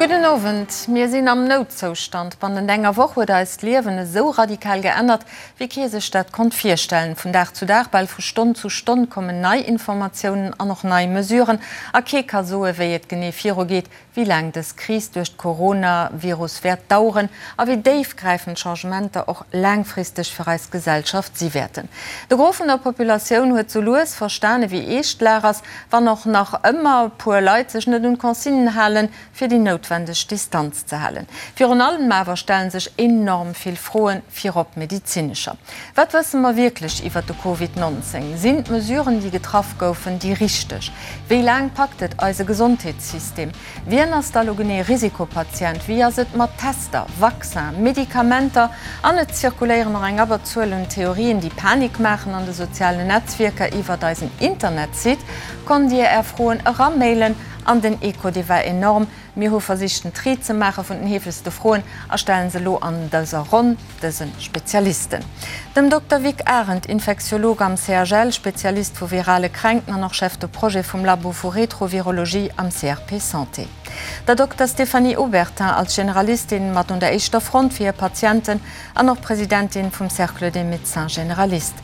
Gudden Owend. Mir sinn am Noutzoustand. Bannent enger Woch huet eist Liewen esou radikal geännert, wéi kee sech dat konnt virstellen. Vun Dag zu Dag, bal vu Stonn zu Stonn kommen nei Informatiounen an och nei Mesuren. A kee ka soe wéi et genee virugeet, wéi laang dës Kris duerch d'Coronavirus wäert daueren a wéi déifgräifend d'Changementer och laangfristeg fir eis Gesellschaft si wäerten. De Gros vun der Populatioun huet sou lues verstane wéi eescht d'Lag ass, wann och nach ëmmer e puer Leit sech net un d'Consignen halen, fir déi noutwendeg Distanz ze halen. Virun allem awer stellen sech enorm vill Froen, virop medezinescher. Wat wësse mer wierklech iwwert de Covid 19? Sinn d'Mesuren, déi getraff goufen, déi richteg? Wéi laang packt et eise Gesondheetssystem? Wien ass da lo genee Risikopatient? Wéi ass et mat Tester, Vaccin, Medikamenter? An et zirkuléieren och eng Abberzuel un Theorien, déi Panik maachen an de sozialen Netzwierker. Iwwert eisen Internetsite konnt Dir Är Froen eramailen an den Echo, dee war enorm. Mir hu versicht den Tri ze maache vun den heefegste Froen a stellen se elo an dëser Ronn dëse Spezialisten. Dem Dokter Vic Arendt, Infektiolog am CHL, Spezialist vu virale Kränkten an och Chef de Projet vum Labo vu Retrovirologie am CRP Santé. Der Dokter Stéphanie Obertin als Generalistin mat un der éischter Front fir hir Patienten an och Presidentin vum Cercle des Médecins Généralistes.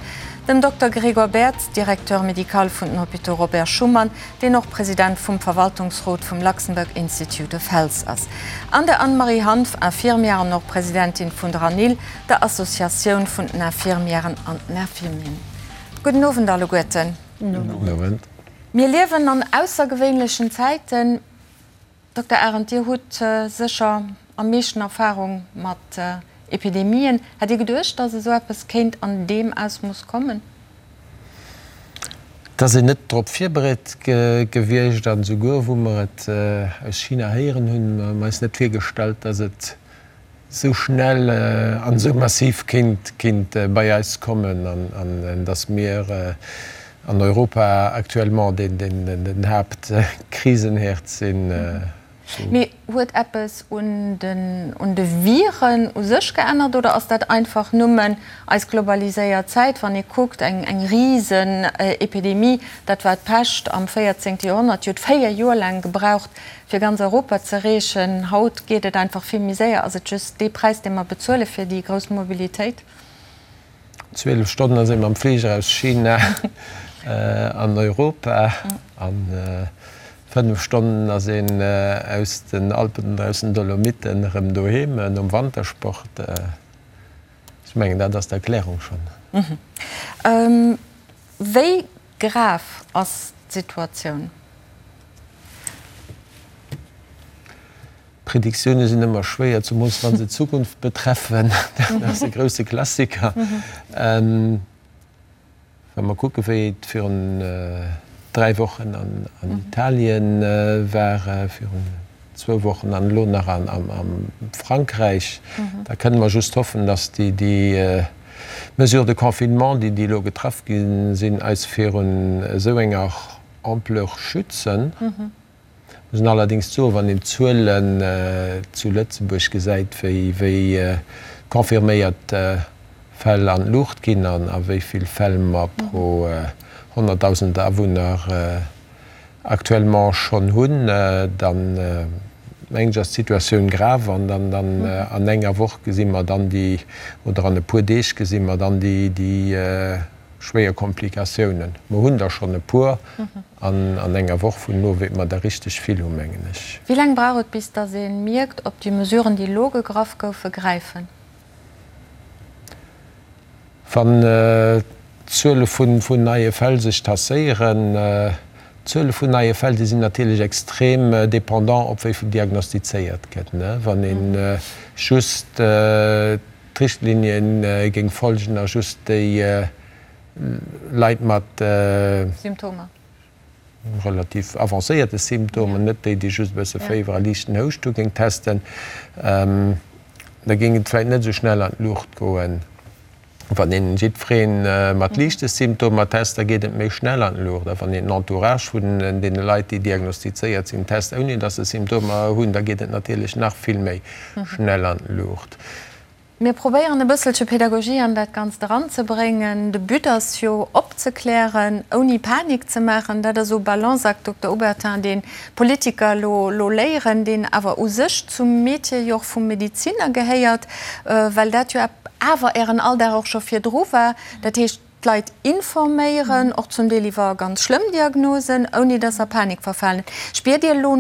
Dem Dokter Gregor Bertz, Directeur médical vun den Hôpitaux Robert Schuman, deen och President vum Verwaltungsrot vum Luxembourg Institute of Health ass, an der Anne-Marie Hanff, Infirmière an och Presidentin vun der ANIL, der Associatioun vun den Infirmièren an den Infirmieren. Gudden Owend alleguerten. Gudden Owend. Mir liewen an aussergewéinlechen Zäiten. Dokter Arendt, Dir hutt sécher am meeschten Erfahrung mat Epidemien. Hätt Dir geduecht, datt esou eppes kéint an deem Ausmooss kommen? Et ass een net drop virbereet gewiescht an esouguer wou mer et aus China héieren hunn, hu mer eis net virgestallt, datt et esou schnell an esou massiv kéint bei eis kommen an datt mir an Europa actuellement den Haaptkrisenherd sinn. Mee huet eppes un de Viren u sech geännert oder ass dat einfach nëmmen eis globaliséiert Zäit? Wann ee kuckt, eng Risenepidemie, dat war d'Pescht am 14. Joerhonnert, déi huet 4 Joer laang gebraucht, fir ganz Europa z'erreechen. Haut geet et einfach vill méi séier. Ass et just dee Präis, dee mer bezuele fir déi grouss Mobilitéit? 12 Stonnen ass ee mam Fliger aus China an Europa an 5 Stonnen ass een aus den Alpen oder aus den Dolomiten erëm doheem nom Wantersport. Ech mengen, dat ass d'Erklärung schonn. Wéi Grav ass d'Situatioun. Prediktioune sinn ëmmer schwéier, zemools wa se d'Zukunft betreffen. Dat ass e grousse Klassiker. Wa mer kucke wéi et virun 3 Wochen an Italien war, virun zwou Wochen an elo nach a Frankräich, da kënne mer just hoffen, datt déi Mesures de confinement, déi elo getraff gi sinn, eis virun esou enger Ampleur schützen. Muss een allerdéngs soen, wann een d'Zuelen zu Lëtzebuerg gesäit, wéi confirméiert Fäll an d'Luucht ginn an a wéi vill Fäll mer pro 100.000 Awunner actuellement schonn hunn, dann mengen ech ass d'Situatioun grave an dann an enger Woch gesi mer dann déi, oder an e puer Deeg gesi mer dann déi schwéier Komplikatiounen. Mer hunn der schonn e puer an an enger Woch vun elo wäerte mer der richteg vill hunn, mengen ech. Wéi laang brauch et bis datt ee mierkt, ob déi Mesuren déi elo gegraff goufe gräifen? Wann d'Zuele vun neie Fäll sech tasséieren, d'Zuele vun neie Fäll, déi sinn natierlech extrem dépendant op wéi vill diagnostizéiert gëtt. Wann ee just d'Richtlinien géing folgen a just déi Leit mat relativ avancéierte Symptomen, net déi, déi just e bësse Féiwer a liichten Houscht hu géing testen, da géing et vläicht net esou schnell an d'Luucht goen. Wann een jiddweree mat liichte Symptomer test, da geet et méi schnell an d'Luucht. A wann een den Entourage vun deene Leit, déi diagnostizéiert sinn, test, ouni datt se Symptomer hunn, da geet et natierlech nach vill méi schnell an d'Luucht. Mir probéieren e bësselche Pedagogie an dat Ganzt eranzebréngen. De But ass jo opzeklären, ouni Panik ze maachen. Dat ass esou e Balanceakt, Dokter Obertin, deen d'Politiker elo elo léieren, deen awer u sech zum Metier jo och vum Medeziner gehéiert, well dat jo awer Ären Alldag och scho virdru war. Dat heescht, d'Leit informéieren, och zum Deel iwwer ganz schlëmm Diagnosen, ouni dass se a Panik verfalen. Spiert Dir elo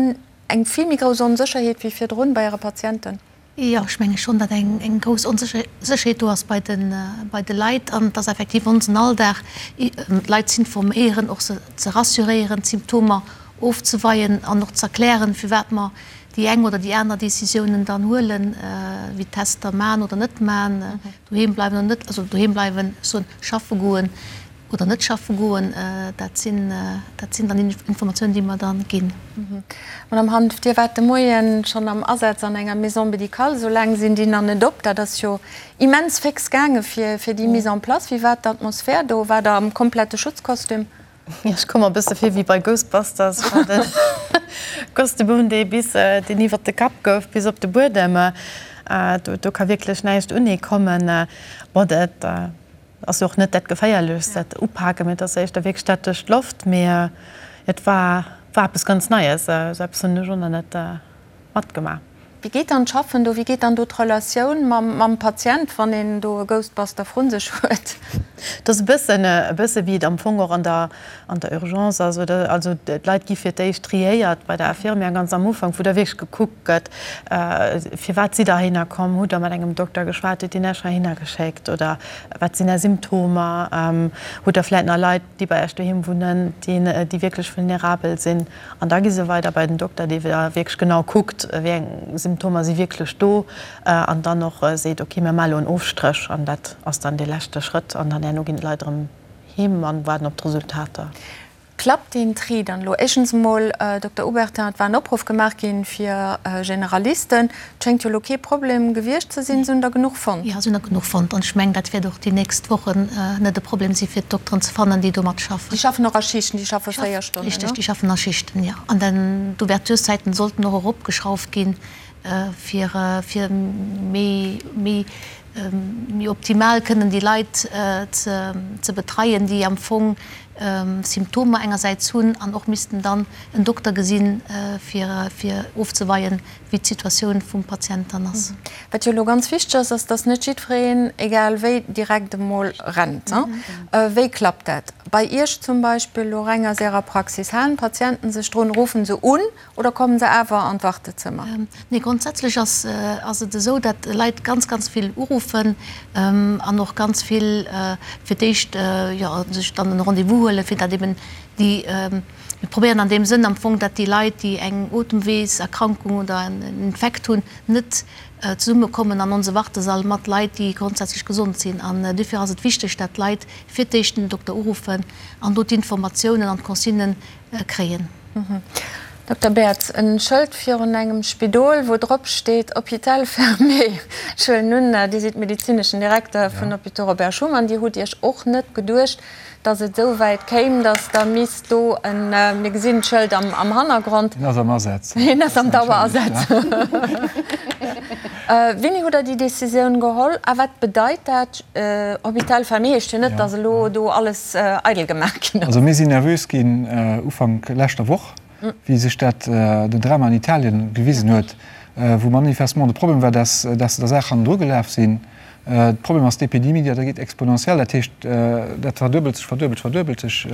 eng vill méi grouss Onsécherheet wéi virdrun bei Äre Patienten? Jo, ech menge schonn, datt eng grouss Onsécherheet do ass bei de Leit an et ass effektiv onsen Alldag, d'Leit z'informéieren, och se ze rassuréieren, d'Symptomer ofzeweien an och z'erklären, firwat mer déi eng oder déi aner Decisiounen dann huelen, wéi Tester man oder net man, doheem bleiwen oder net, also doheem bleiwen, ech soen, schaffe goen. Oder net schaffe goen, dat sinn, dat sinn dann Informatiounen, déi mer da ginn. Madame Hanff, Dir waart de Moien schonn am Asaz an enger Maison médicale. Esou laang sinn déi nach net op. Dat ass jo immens féx gaange fir, fir déi Mise en place. Wéi war d'Atmosphär do? Waart Der am komplette Schutzkostüm? Jo, ech koum mer e bësse vir wéi bei Ghostbusters. Ech hat e Kostüm un, dee bis, deen iwwert de Kapp gouf bis op de Buedem. Do, do ka wierklech näischt un ee kommen. Bon, dat. Ass jo och net dat Geféierlechst, dat Upaken, mee et ass éischter wierklech dat duerch d'Loft. Mee et war war eppes ganz Neies, esou eppes hunn ech och nach net matgemaach. Wéi geet dann d'Schaffen do? Wéi geet dann do d'Relatioun mam mam Patient, wann een do e Ghostbuster vrun sech huet? Et ass e bëssen e bësse wéi et am Fong och an der an der Urgence ass, oder? Also d'Leit gi fir d'éischt triéiert bei der Infirmière ganz am Ufank, wou da wierklech gekuckt gëtt, Firwat sidd Der heihinner komm? Hutt Der mat engem Dokter geschwat? Huet deen Iech heihinner geschéckt? Oder wat sinn Är Symptomer? Hutt Der vläicht nach Leit, déi bei Iech doheem wunnen, déi wierklech vulnerabel sinn? An da gi se weider bei den Dokter, dee da wierklech genau kuckt, wéi eng Symptomer si wierklech do an dann och seet, Okay, mir maache elo en Ofstréch. An dat ass dann dee leschte Schrëtt. An dann herno ginn d'Leit erëm heem an waarden op d'Resultater. Klappt deen Tri dann elo? Éischtens emol, Dokter Obertin, et war en Opruff gemaach ginn fir Generalisten. Et schéngt jo elo kee Problem gewiescht ze sinn. Se hunn der genuch fonnt? Jo, se hunn der genuch fonnt. An ech mengen, dat wäert och déi nächst Wochen net e Problem si fir d'Dokteren ze fannen, déi do matschaffen. Déi schaffen och a Schichten, déi schaffe 4 Stonnen, ne? Richteg, déi schaffen a Schichten, jo. An dann d'Ouvertureszäiten sollten och eropgeschrauft ginn, fir fir méi méi méi optimal kënnen déi Leit ze betreien, déi am Fong Symptomer engersäits hunn an och missten dann en Dokter gesinn, fir fir ofzeweien, wéi d'Situatioun vum Patient dann ass. Wat jo elo ganz wichteg ass, ass, dass net jiddwereen, egal wéi, direkt emol rennt. Wéi klappt dat bei Iech zum Beispill elo reng aus Ärer Praxis? Halen d'Patienten sech drun? Ruffen se un Oder kommen se awer an d'Wartezëmmer? Nee, grondsätzlech ass ass et esou, datt Leit ganz, ganz vill uruffen an och ganz vill fir d'éischt, jo, sech dann en Rendez-vous huelen, fir datt eben déi, mir probéieren an deem Sënn am Fong, datt déi Leit, déi eng Otemweeserkrankung oder en Infekt hunn, net zesummekommen an onse Wartesall mat Leit, déi grondsätzlech gesond sinn. An duerfir ass et wichteg, datt d'Leit fir d'éischt den Dokter uruffen an do d'Informatiounen an d'Consignen kréien. Dokter Baertz, en Schëld virun engem Spidol, wou drop steet Hôpital fermé. Ech huelen un, Dir sidd medezineschen Direkter vun Hôpitaux Robert Schuman. Dir hutt Iech och net geduecht, datt et esou wäit kéim, datt Der misst do en, mir gesinn d'Schëld am Hannergrond. Hien ass am Asaz. Hien ass am Dauerasaz. Wéini hutt Der déi Decisioun geholl a wat bedeit dat? Hôpital fermé heescht jo net, datt elo do alles eidel gemaach ginn ass. Also mir sinn nervös ginn Ufank leschter Woch, wéi sech dat, den Drama an Italien gewisen huet, wou manifestement de Problem war, dass dass se der Saach hannendru gelaf sinn. De Problem ass, d'Epidemie, déi geet exponentiell, dat heescht, dat verduebelt sech, verduebelt, verduebelt sech.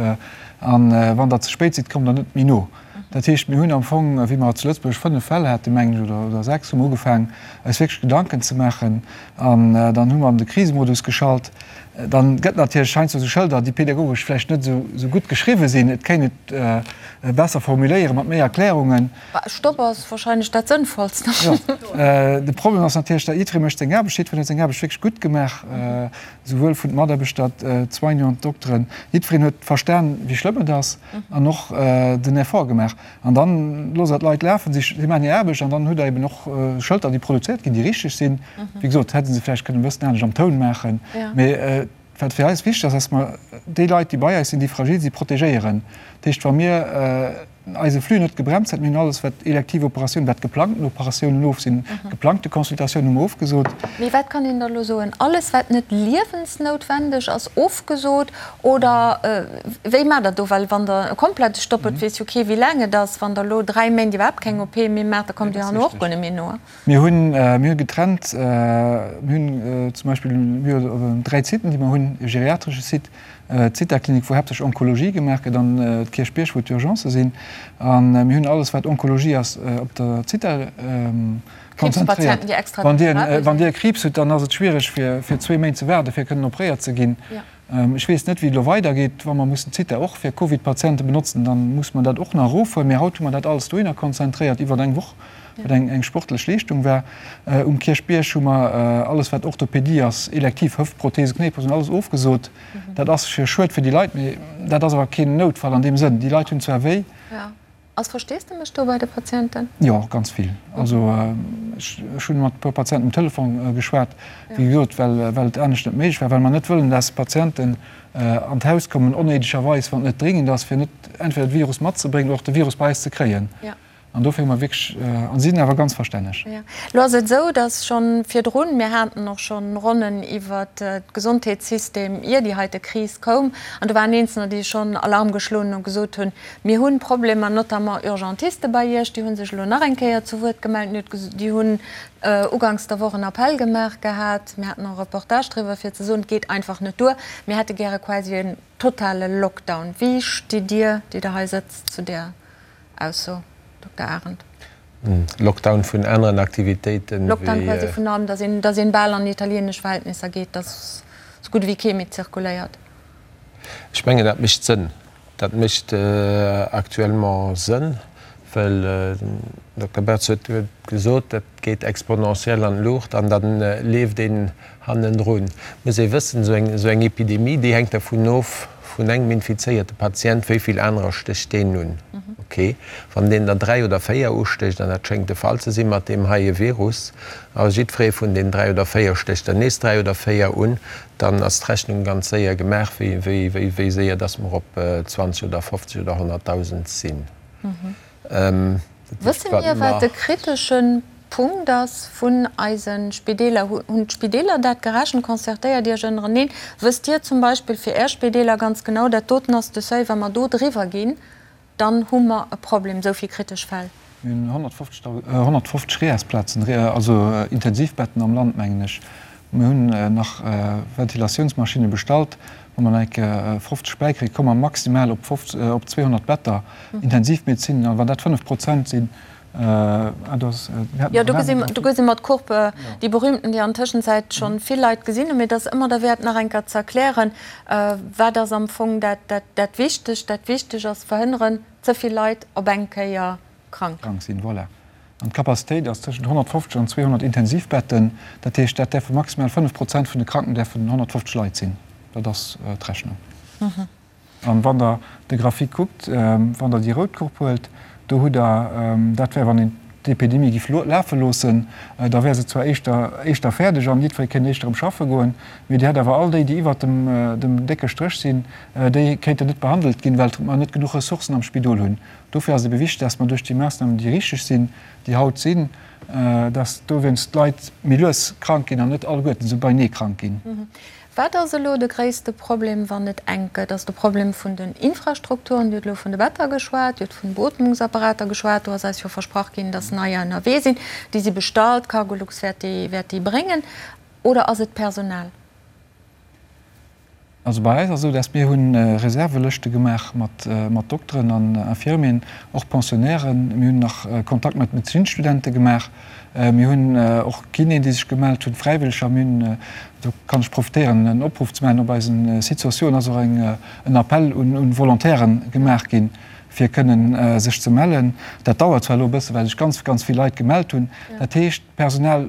A wann Der ze spéit sidd, kommt Der net méi no. Dat heescht, mir hunn am Fong, wéi mer zu Lëtzebuerg 5 Fäll haten, mengen ech, oder oder 6, hu mer ugefaangen, eis wierklech Gedanken ze maachen. An dann hu mer an de Krisemodus geschalt. Dann gëtt natierlech heiansdo esou Schëlder, déi pedagogesch vläicht net esou gutt geschriwwe sinn. Et kéint et besser formuléieren, mat méi Erklärungen. Stopp ass wahrscheinlech dat Sënnvollst. Jo, de Problem ass natierlech, dat jiddweree mécht seng Aarbecht. Jiddwereen huet seng Aarbecht wierklech gutt gemaach, souwuel vun de Mataarbechter, d'Soignanten, d'Dokteren. Jiddwereen huet verstan, wéi schlëmm et ass an och den Effort gemaach. An dann loosst Der d'Leit lafen, si maachen hir Aarbecht an dann hutt Der eben och Schëlter, déi produzéiert ginn, déi richteg sinn. Wéi gesot, hätte se vläicht kënnen e bëssen anescht am Toun maachen. Mee wat fir eis wichteg ass, dass mer déi Leit, déi bei eis sinn, déi fragil sinn, protegéieren. Dat heescht, wa mir. eise Flux net gebremst hat. Mir hunn alles, wat elektiv Operatiounen, wat geplangten Operatiounen of sinn, geplangte Consultatiounen hu mer ofgesot. Mee wat kann een da elo soen? Alles, wat net liewensnoutwendeg ass, ofgesot? Oder wéi maacht Der do? Well wann Der e komplette Stopp hutt, weess jo kee wéi laang et ass. Wann Der elo 3 Méint iwwerhaapt keng OP méi maacht, da kommt Dir herno och guer net méi no. Mir hunn, mir hu getrennt, mir hunn zum Beispill, mir hu 3 Siten, déi mer hunn, e geriatresche Site, d'Zithaklinik, wou haaptsächlech Onkologie gemaach gëtt, an d'Kierchbierg, wou d'Urgencë sinn. A mir hunn alles, wat Onkologie ass, op der Zitha konzentréiert. Wann Dir, wann Dir e Kriibs hutt, dann ass et schwiereg, fir, fir zwee Méint ze waarden, fir kënnen opréiert ze ginn. Ech weess net, wéi et elo weidergeet. Wa mer mussen d'Zitha och fir Covid-Patiente benotzen, da muss mer dat och nach erofhuelen. Mee haut hu mer dat alles dohinner konzentréiert iwwer eng Woch, wat eng eng sportlech Leeschtung war. Um Kierchbierg hu mer alles, wat Orthopedie ass, elektiv Hëftprothese, Knéiprothesen, alles ofgesot. Dat ass fir schued fir déi Leit, mee dat ass awer keen Noutfall an deem Sënn. Déi Leit hunn zwar wéi. Ass Versteesdemech do bei de Patienten? Jo, ganz vill. Also ech hunn mat e puer Patienten um Telefon geschwat, wéi gesot, well well et anescht net méiglech war, well mer net wëllen, dass Patienten an d'Haus kommen onnéidegerweis, wann et net dringend ass, fir net entweder de Virus matzebréngen oder och de Virus bei eis ze kréien. An dofir hu mer wierklech, a si sinn awer ganz verstänneg. Elo ass et esou, dass schonn virdrun, mir haten och schonn Ronnen iwwert d'Gesondheetssystem, ier déi heite Kris koum, an do waren Eenzelner, déi schonn Alarm geschloen hunn a gesot hunn, Mir hunn Problemer, notamment Urgentiste bei Iech, déi hu sech elo nach eng Kéier zu Wuert gemellt. Déi hunn uganks der Woch en Appell gemaach gehat. Mir haten och e Reportage driwwer, fir ze soen, et geet einfach net duer. Mir hätte gäre quasi en totale Lockdown. Wéi stitt Dir, déi Der hei sëtzt, zu där Ausso, Dokter Arendt? Lockdown vun aneren Aktivitéiten wéi. Lockdown quasi vun allem, datt een, datt een bal an italienesch Verhältnisser geet, datt esou gutt ewéi kee méi zirkuléiert. Ech mengen, dat mécht Sënn. Dat mécht actuellement Sënn, well den Dokter Bertz huet gesot, dat geet exponentiell an d'Luucht an da leeft een hannendrun. Et muss ee wëssen, esou eng Epidemie, déi hänkt dervun of, vun engem infizéierte Patient, wéi vill anerer stécht deen un. Okay, wann deen der 3 oder 4 ustécht, an dat schéngt de Fall ze si mat deem heie Virus, a jiddweree vun den 3 oder 4 stécht der nees 3 oder 4 un, Dann ass d'Rechnung ganz séier gemaach, wéi séier dass mer op 20 oder 50 oder 100.000 sinn. Wësse mir, wat de kritesche Punkt ass vun eise Spideeler? Hunn d'Spideeler dat gerechent? Concertéiert Iech ënnereneen? Wësst Dir zum Beispill fir Är Spideeler ganz genau, dat doten ass de Seuil, wa mer do driwwer ginn, Dann hu mer e Problem, esou vill kritesch Fäll. Mir hunn 150 REAS-Plazen, also Intensivbetten am Land, mengen ech. Mir hunn nach Ventilatiounsmaschinne bestallt. Wa mer nach eng Kéier 50 bäikréien, komme mer maximal op 200 Better Intensivmedezin. A wann dat 5 Prozent sinn, Jo, do gesi mer d'Courbe, déi berühmten, déi an Tëschenzäit scho vill Leit gesinn hunn. Mee et ass ëmmer derwäert, nach eng Kéier ze erklären, wat ass am Fong dat Wichtegt. Dat Wichteg ass verhënneren, ze vill Leit op eng Kéier krank. Krank sinn, voilà. An d'Capacitéit ass tëschent 150 an 200 Intensivbetten. Dat heescht, dat däerfe maximal 5 Prozent vun de Kranken däerfen 150 Leit sinn. Dat ass d'Rechnung. An wann Der de Graphique kuckt, wann Der déi rout Courbe huelt, do hutt Der, dat wär wann een d'Epidemie giff lafe loossen, da wär se zwar éischter éischter fäerdeg an jiddweree kéint éischter erëm schaffe goen, mee Dir hätt awer all déi, déi iwwert dem dem décke Stréch sinn, déi kéinten net behandelt ginn, well mer net genuch Ressourcen am Spidol hunn. Dofir ass et ebe wichteg, dass mer duerch déi Maassnamen, déi richteg sinn, déi haut sinn, dass dowéinst d'Leit méi lues krank ginn an net alleguerten esou beinee krank ginn. Wat ass elo de gréisste Problem, wann et enk gëtt? Ass de Problem vun den Infrastrukturen, Dir hutt elo vun de Better geschwat, Dir hutt vun Beootmungsapparater geschwat, do ass eis jo versprach ginn, datt neier ënnerwee sinn, déi si bestallt, Cargolux wäert déi, wäert déi bréngen. Oder ass et d'Personal? Also bei eis ass esou, datt mir hu Reservelëschte gemaach mat, mat Dokteren an Infirmieren, och Pensionnairen. Mir hunn nach Kontakt mat Medezinsstudente gemaach. Mir hunn och Kinéen, déi sech gemellt hunn, Fräiwëlleger. Mir hunn, do kann ech profitéieren, en Opruff ze maachen, op eisem Site sociaux ass och en Appell un Volontairen gemaach ginn, fir kënnen sech ze mellen. Dat dauert zwar elo e bësse, well sech ganz, ganz vill Leit gemellt hunn. Dat heescht, d'Personal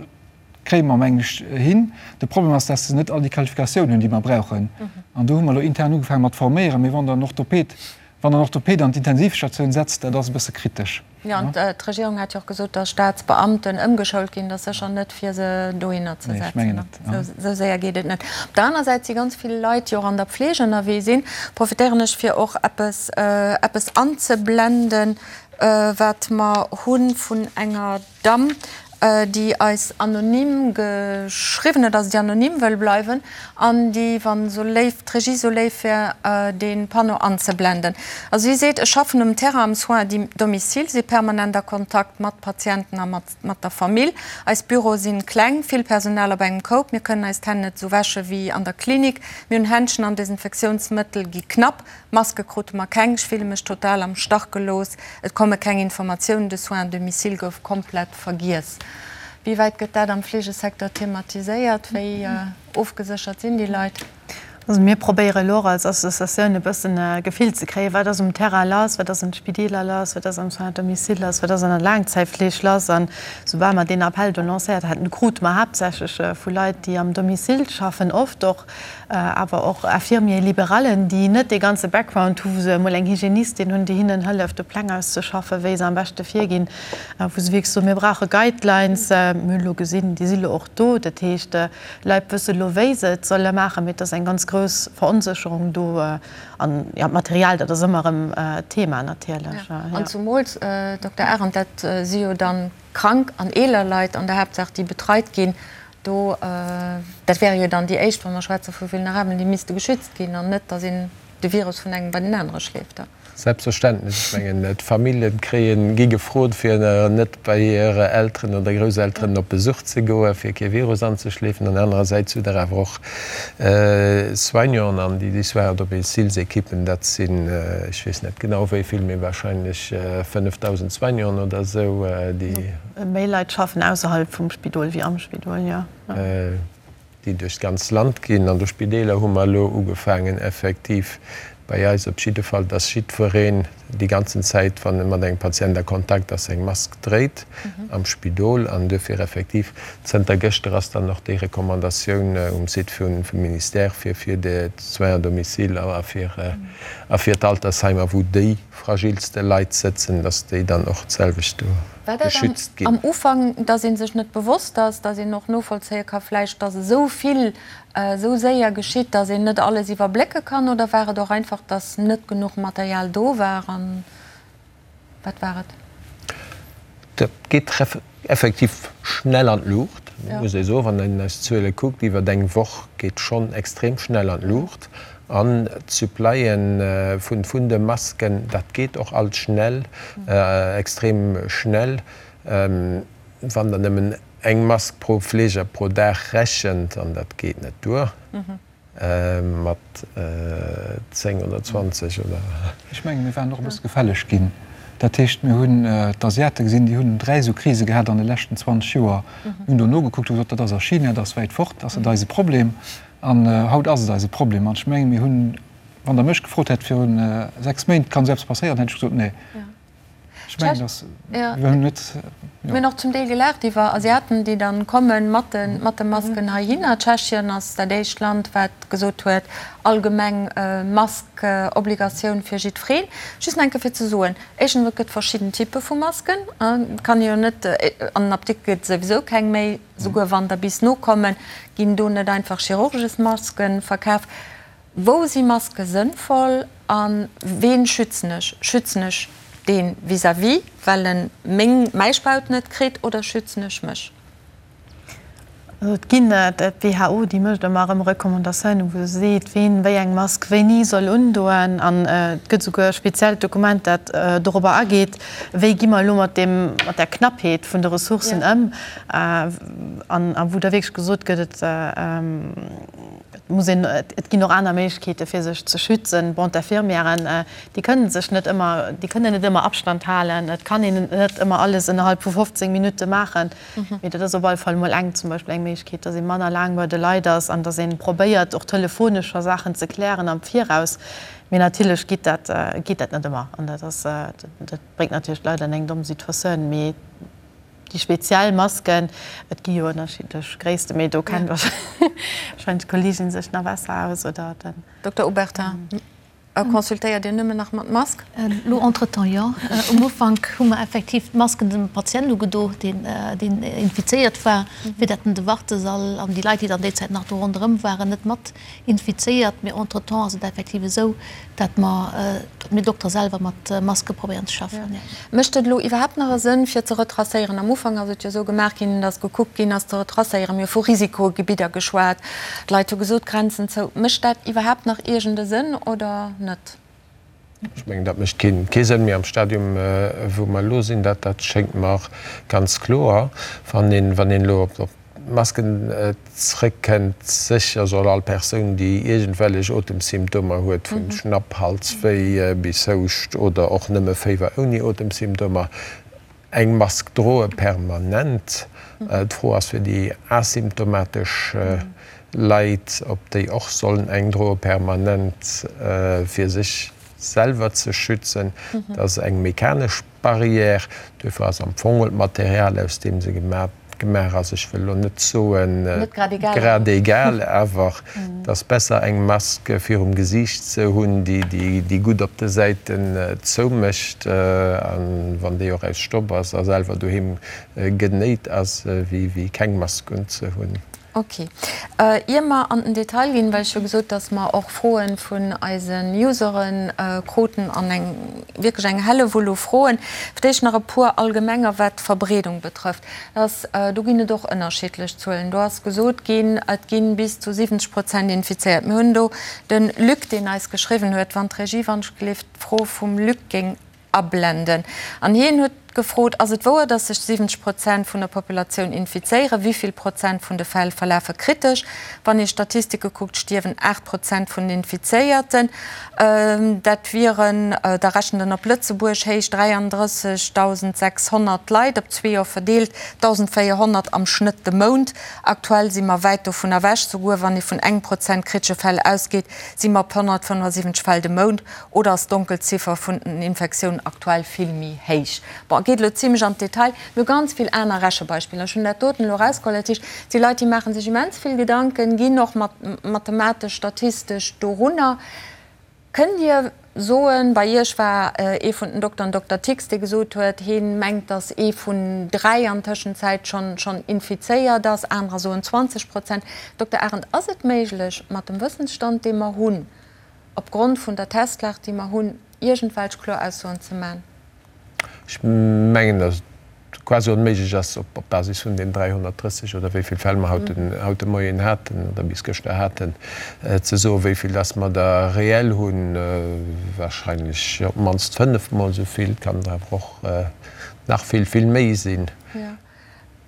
kréie mer, mengen ech, hin. De Problem ass, dass se net all déi Qualifikatioun hunn, déi mer brauchen. An do hu mer elo intern ugefaange mat forméieren. Mee wann Der en Orthoped. Wann en Orthopäd an d'Intensivstatioun setzt, dat ass e bësse kritesch. Jo, an d'Regierung hat jo och gesot, datt Staatsbeamten ëmgeschoult ginn. Dat ass sécher net, fir se dohinner ze setzen. Esou séier geet et net. Op der aner Säit si ganz vill Leit, déi och an der Pfleg ënnerwee sinn. Profitéieren ech, fir och eppes, eppes anzeblenden, wat mer hu vun enger Damm, déi eis anonym geschriwwen huet, also déi anonym wëll bleiwen an déi, wann esou léif, d'Regie esou léif wär, dee Panneau anzeblenden. Also si seet, Ech schaffen um Terrain am Soins à domicile, si permanent a Kontakt mat Patienten a mat der Famill. Eis Büroe sinn kleng, vill Personal op engem Koup, mir kënnen eis d'Hänn net esou wäsche wéi an der Klinik, mir hunn Händschen an Desinfektiounsmëttel gi knapp. Maske krute mer keng, ech fille mech total am Stach gelooss, et komme keng Informatiounen, de Soins à domicile gouf komplett vergiess. Wéi wäit gëtt dat am Fleegesecteur thematiséiert? Wéi ofgeséchert sinn déi Leit? Also mir probéiere elo och als Associatioun e bëssen e Gefill ze kréien, wat ass um Terrain lass, wat ass an de Spideeler lass, wat ass am Soins à domicile lass, wat ass an der Laangzäitfleeg lass. An soubal mer deen Appell do lancéiert haten, krute mer haaptsächlech vu Leit, déi am Domicile schaffen, oft och awer och Infirmiers libéralen, déi net dee ganze Background hu wou se emol eng Hygienistin hunn, déi hinnen hëlleft, de Pläng auszeschaffen, wéi se am beschte virginn, wou se wierklech soen, mir brauche Guidelines. Mir hunn elo gesinn, déi si lo och do. Dat heescht, d'Leit wësse lo, wéi se et solle maachen, mee et ass eng ganz grouss Veronsécherung do. An jo, d'Material, dat ass ëmmer erëm Thema natierlech. An zumools, Dokter Arendt, dat si jo dann krank an eeler Leit an der Haaptsaach, déi betreit ginn. Do, dat wäre jo dann déi éischt, wa mer schwätze vu Vulnerabelen, déi misste geschützt ginn an net, datt een de Virus vun engem bei den anere schleeft. Selbstverständlech. Ech mengen, d'Famillje kréien, gi gefrot, fir net bei hir Elteren oder Grousselteren op Besuch ze goen, fir kee Virus anzeschleefen. An anerersäits hutt Der awer och Soignanten an déi Soins à domicile-Ekippen, dat sinn, ech weess net genau wéi vill, mee wahrscheinlech 5.000 Soignanten oder esou, déi. Méi Leit schaffen ausserhalb vum Spidol wéi am Spidol, jo. Déi duerch d'ganz Land ginn. An de Spideeler hu mer elo ugefaangen, effektiv bei eis op jidde Fall, dass jiddwereen déi ganzen Zäit, wann e mat engem Patient a Kontakt ass, eng Mask dréit am Spidol. An duerfir effektiv, zënter gëschter ass dann och déi Recommandatioun um Site vum Ministère fir fir d'Soins à domicile a fir a fir d'Altersheimer, wou déi fragilste Leit sëtzen, dass déi dann och d'selwecht do War dat geschützt ginn. am Ufank, dass ee sech net bewosst ass, dass een och novollzéie ka vläicht, dass esou vill esou séier geschitt, dass een net alles iwwerblécke kann, oder war et och einfach, dass net genuch Material do war? An wat war et? Dat geet effektiv schnell an d'Luucht, muss ee soen. Wann een eis Zuele kuckt iwwer eng Woch, geet schonn extrem schnell an d'Luucht. An d'Supplyen vun de Masken, dat geet och alt schnell, extrem schnell. Wann Der nëmmen eng Mask pro Fleeger pro Dag rechent, an dat geet net duer mat 10 oder 20 oder. Ech mengen, mir waren och e bësse gefälleg ginn. Dat heescht, mir hunn d'Asiate gesinn, déi hunn 3 esou Krise gehat an de leschten 20 Joer. Mir hunn do nogekuckt, hu gesot, dat ass a China, dat ass wäit fort, ass net eise Problem. An haut ass et eise Problem. An ech mengen, mir hunn, wann Der mech gefrot hätt viru 6 Méint, kann esou eppes passéieren, hätt ech gesot, nee. Ech mengen, dass mir hunn net, jo. Mir hunn och zum Deel gelaacht iwwer Asiaten, déi dann komme mat de mat de Masken heihinner. Tschechien ass dat éischt Land, wat gesot huet, allgemeng Mask-Obligatioun fir jiddwereen. Just nach eng Kéier fir ze soen, éischtens, et gëtt verschidden Typpe vu Masken. Et kann ee jo net, an den Apdikte gëtt et souwisou keng méi. Souguer wann der bis nokommen, ginn do net einfach Chirurgesmasken verkaf. Wou si Maske sënnvoll a ween schützen ech? Schützen ech dee vis-à-vis, well en meng, mäi Spaut net kritt, oder schützen ech mech? Also et ginn, d'WHO déi mécht ëmmer erëm Recommandatiounen, wou se seet, ween wéi eng Mask wéini soll undoen. An et gëtt souguer e speziellt Dokument, dat dorobber ageet, wéi gi mer elo mat deem, mat där Knappheet vun de Ressourcen ëm. An a wou da wierklech gesot gëtt, et muss een, et ginn och aner Méiglechkeete fir sech ze schützen. Bon, d'Infirmièren, déi kënnen sech net ëmmer, déi kënnen net ëmmer Abstand halen, et kann een net ëmmer alles ënnerhalb vu 15 Minutte maachen. Mee dat ass op alle Fall emol eng, zum Beispill eng Méiglechkeet, datt ee manner laang bei de Leit ass an datt ee probéiert och telefonesch scho Saachen ze klären am Viraus. Mee natierlech geet dat, geet dat net ëmmer an dat ass, dat bréngt natierlech d'Leit an eng domm Situatioun. Mee Déi speziell Masken, et gi jo ënnerschiddlech Gréissten, mee do kennt warscheinlech d'Kolleegin sech nach besser aus, oder den. Dokter Obertin. Consultéiert Dir nëmmen nach mat Mask? Elo entretemps jo. Um Ufank hu mer effektiv d'Masken dem Patient ugedo, deen infizéiert war, fir datt en de Wartesall an déi Leit, déi dann déi Zäit nach do ronderëm waren, net mat infizéiert. Mee entretemps ass et effektiv esou, datt mer, datt mir Dokter selwer mat Maske probéieren ze schaffen, jo. Mécht et elo iwwerhaapt nach e Sënn, fir ze retracéieren? Am Ufank ass et jo esou gemaach ginn, datt gekuckt ginn ass ze retracéieren. Mir hu vu Risikogebidder geschwat, d'Leit hu gesot, Grenzen zou. Mécht dat iwwerhaapt nach iergend e Sënn oder net? Ech mengen, dat mécht kee Sënn méi am Stadium, wou mer elo sinn. Dat schéngt mer ganz kloer. Wann een elo op d'Masken zrëckkënnt, sécher soll all Persoun, déi iergendwellech Otemsymptomer huet, vu Schnapp, Halswéi bis Houscht oder och nëmme Féiwer ouni Otemsymptomer, eng Mask droe permanent. D'Fro ass fir déi asymptomatesch Leit, ob déi och sollen eng droe permanent, fir sech selwer ze schützen. Dat ass eng mechanesch Barrière. Duerfir ass am Fong d'Material, aus deem se gemaach ass, ech wëll elo net soen grad egal, awer et ass besser eng Mask virum Gesiicht ze hunn, déi gutt op de Säiten zoumécht, a wann déi och aus Stoff ass a selwer doheem genéit ass, wéi keng Mask unzehunn. Ok. Ier mer an den Detail ginn, well ech hu gesot, dass mer och Froen vun eisen Usere kruten an eng wierklech eng Hellewull u Froen, fir d'éischt nach e puer allgemenger, wat d'Verbreedung betrëfft. Dass, do ginn et och ënnerschiddlech Zuelen. Do ass gesot ginn, et gi bis zu 70 Prozent infizéiert. Mir hunn do de Luc, deen eis geschriwwen huet, wann d'Regie wann-ech-gelift d'Fro vum Luc géing ablenden. An hien huet gefrot, Ass et wouer, datt sech 70 Prozent vun der Populatioun infizéieren? Wéi vill Prozent vun de Fäll verlafe kritesch? Wann ee Statistike kuckt, stierwen 8 Prozent vun den Infizéierten. Dat wieren, da rechent en op Lëtzebuerg héich, 33.600 Leit, op zwee Joer verdeelt 1.400 am Schnëtt de Mount. Aktuell si mer wäit dovun ewech. Souguer wann ee vun engem Prozent kritesche Fäll ausgeet, si mer op 175 Fäll de Mount. Oder ass d'Donkelziffer vun den Infektiounen aktuell vill méi héich? Bon, geet elo zimlech an d'Detail. Mir hu ganz vill aner Rechebeispiller. Ech hunn dat doten elo erausgeholl. Dat heescht, et si Leit, déi maache sech immens vill Gedanken, ginn och mathematesch, statistesch dorunner. Kënnt Dir soen, bei Iech war ee vun den Dokteren, Dokter Tix, dee gesot huet, hee mengt, datt ee vun 3 an Tëschenzäit schonn infizéiert ass, anerer soen 20 Prozent. Dokter Arendt, ass et méiglech, mat dem Wëssensstand, dee mer hunn, opgrond vun der Testlag, déi mer hunn, iergendwelch kloer Aussoen ze man? Ech mengen, datt et quasi onméiglech ass, op Basis vun den 330 oder wéi vill Fäll mer haut de Moien haten oder bis gëschter haten, ze soen, wéi vill datt mer der reell hunn. Wahrscheinlech op d'mannst fënnefmol esou vill. Et kann der awer och nach vill, vill méi sinn.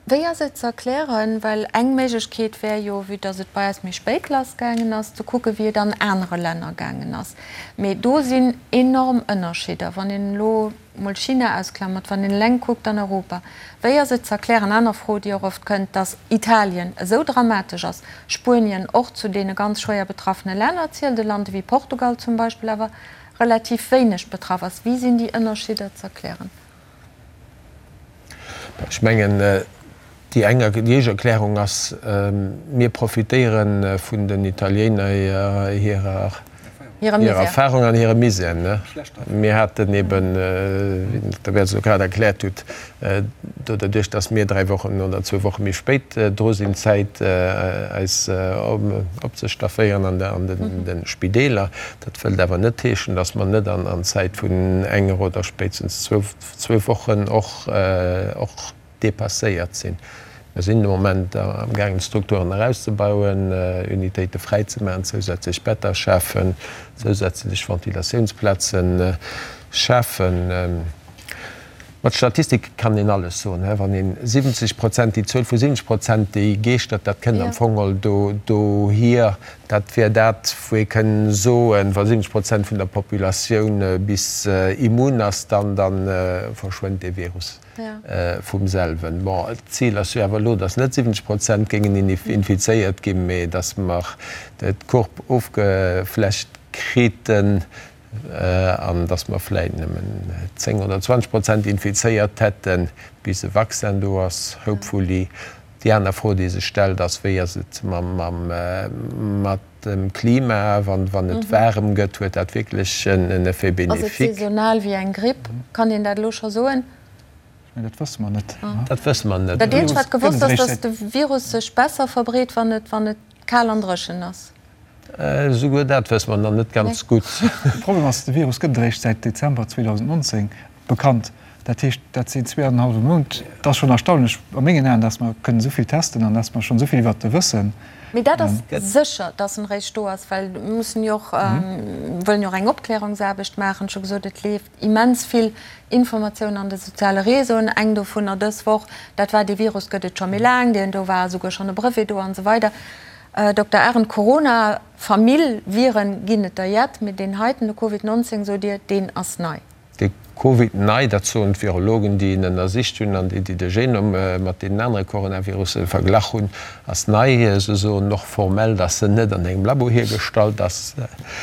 Wéi ass et ze erklären, well eng Méiglechkeet wär jo, vue dass et bei eis méi spéit lassgaangen ass, ze kucken, wéi et an anere Länner gaangen ass. Mee do sinn enorm Ënnerscheeder, wann een elo mol China ausklamert, wann een eleng kuckt an Europa. Wéi ass et ze erklären, aner Fro, déi och oft kënnt, dass Italien esou dramatesch ass, Spuenien och zu deene ganz schwéier betraffene Länner zielt, e Land ewéi Portugal zum Beispill awer relativ wéineg betraff ass. Wéi sinn déi Ënnerscheeder ze erklären? Ech mengen, déi eng, déi éischt Erklärung ass, mir profitéiere vun den Italiener hirer Erfahrung an hirem Misär. Mir haten eben, wéi den Dokter Bertz elo grad erkläert huet, do derduerch, datt mir dräi Wochen oder zwou Woche méi spéit dru sinn, Zäit eis opzestafféieren an de Spideeler. Dat wëllt awer net heeschen, datt mer net an Zäit vun enger oder spéitstens zwou Wochen och dépasséiert sinn. Mir sinn de Moment amgaangen, d'Strukturen erauszebauen, Unitéite fräizemaachen, zousätzlech Better schafen, zousätzlech Ventilatiounsplaze schafen. Mat Statistik kann een alles soen. Wann een 70 Prozent, déi Zuel vu 70 Prozent, déi geeschtert, dat kënnt am Fong all dohier. Dat wär dat, wou ee kënn soen, wa 70 Prozent vun der Populatioun bis immun ass, dann da verschwënnt dee Virus vum selwen. Bon, d'Zil ass jo awer elo, datt net 70 Prozent géingen infizéiert ginn, mee datt mer d'Courbe ofgeflächt kriten, an dass mer vläit nëmmen 10 oder 20 Prozent infizéiert hätten, bis e Vaccin do ass, hopefully. Déi aner Fro, déi sech stellt, ass, Wéi ass et mat. dem Klima, wann et waarem gëtt, huet dat wierklech en Effet bénéfique. Ass et saisonal wéi eng Gripp? Kann een dat elo scho soen? Ech mengen, dat wësse mer net. Dat wësse mer net. Dat eenzegt, wat gewosst ass, datt de Virus sech besser verbreet, wann et, wann et kal an dréchen ass. Esouguer dat wësse mer nach net ganz gutt. De Problem ass, de Virus gëtt et eréischt säit Dezember 2019 bekannt. Dat heescht, dat sinn zweeanenhallwe Mount. Et ass schonn erstaunlech a mengen Aen, dass mer kënnen esou vill testen an dass mer schonn esou vill iwwert e wëssen. Mee dat ass sécher, dass en eréischt do ass, well mir mussen jo och, wëllen jo och eng Opklärungsaarbecht maachen. Ech hu gesot, et leeft immens vill Informatioun an de soziale Réseauen. Eng dovunner dës Woch, dat war, dee Virus gëtt et scho méi laang, deen do war esouguer schonn e Brevet do an esou weider. Dokter Arendt, Corona-Famill, Viren ginn et der jett, mee deen heiten, de Covid 19, sot Dir, deen ass nei. De Covid nei, dat soen d'Virologen, déi en ënnersicht hunn an déi, déi de Genom mat deenen anere Coronavirusse verglach hunn, ass nei. Se soen och formell, datt en net an engem Labo hiergestallt ass.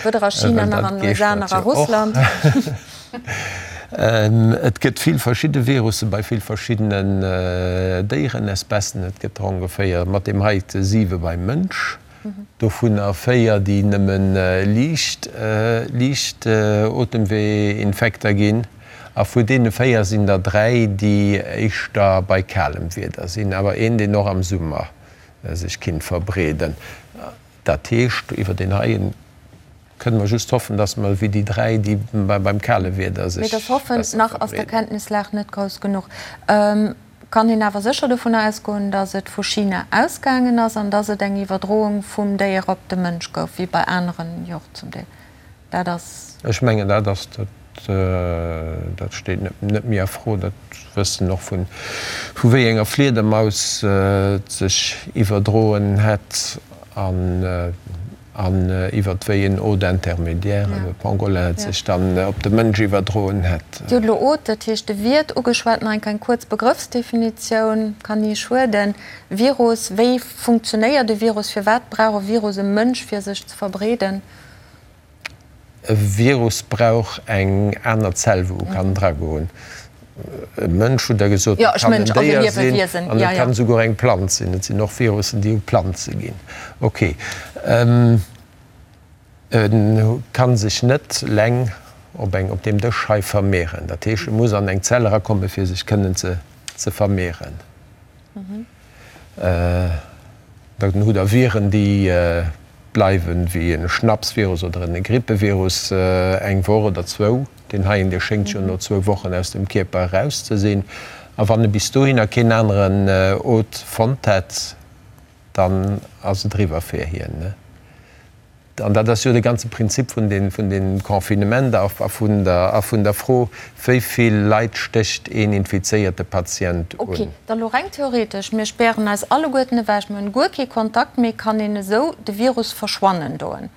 Weder a China nach an den USA nach a Russland. Et gëtt vill verschidde Virusse bei vill verschiddenen Déierenespècen. Et gëtt der ongeféier mat deem heite siwe beim Mënsch. Dovunner 4, déi nëmme liicht liicht Otemweeinfekter ginn. A vu deene 4 sinn der 3, déi éischter bei kalem Wieder sinn, awer een, deen och am Summer sech kinnt verbreeden. Dat heescht, iwwer deen heien kënne mer just hoffen, dass mer wéi déi 3, déi beim kale Wieder sech besser verbreeden. Mee dat Hoffen, nach ass der Kenntnislag net grouss genuch. Kann een awer sécher dovunner ausgoen, datt et vu China ausgaangen ass an datt et eng Iwwerdroung vum Déier op de Mënsch gouf, wéi bei aneren jo och zum Deel. Dat ass. Ech mengen, dat ass, dat steet net méi a Fro. Dat wëssen och vu vu wéi enger Fliedermaus et sech iwwerdroen hätt. An An iwwert wéi en Hôte intermédiaire, e Pangolin, et sech dann op de Mënsch iwwerdroen hätt. Dir hutt elo Hôte, dat heescht de Wiert, ugeschwat. Nach eng kleng kuerz Begrëffsdefinitioun kann ni schueden. Virus, wéi funktionéiert e Virus? Firwat brauch e Virus e Mënsch, fir sech ze verbreeden? E Virus brauch eng aner Zell, wou e kann dragoen. E Mënsch, hutt Der gesot, et kann en Déier sinn an et kann esouguer eng Planz sinn. Et sinn och Virussen, déi u Planze ginn. Ok. E ka sech net leng op eng, op deem Dësch hei vermehren. Dat heescht, e muss an eng Zell erakommen, fir sech kënnen ze vermehren. Dann hutt Der Viren, déi bleiwen, wéi e Schnapsvirus oder e Grippevirus, eng Woch oder zwou. Deen heien, dee schéngt jo no zwou Wochen aus dem Kierper eraus ze sinn. A wann e bis dohinner keen aneren Hôte fonnt hätt, dann ass et eriwwer fir hien. An dat ass jo de ganze Prinzip vun deem Confinement a vun der Fro, wéi vill Leit stécht een infizéierte Patient un. Ok, da lo reng theoretesch, mir spären eis alleguerten ewech, mir hunn guer kee Kontakt méi, kann een esou de Virus verschwannen doen?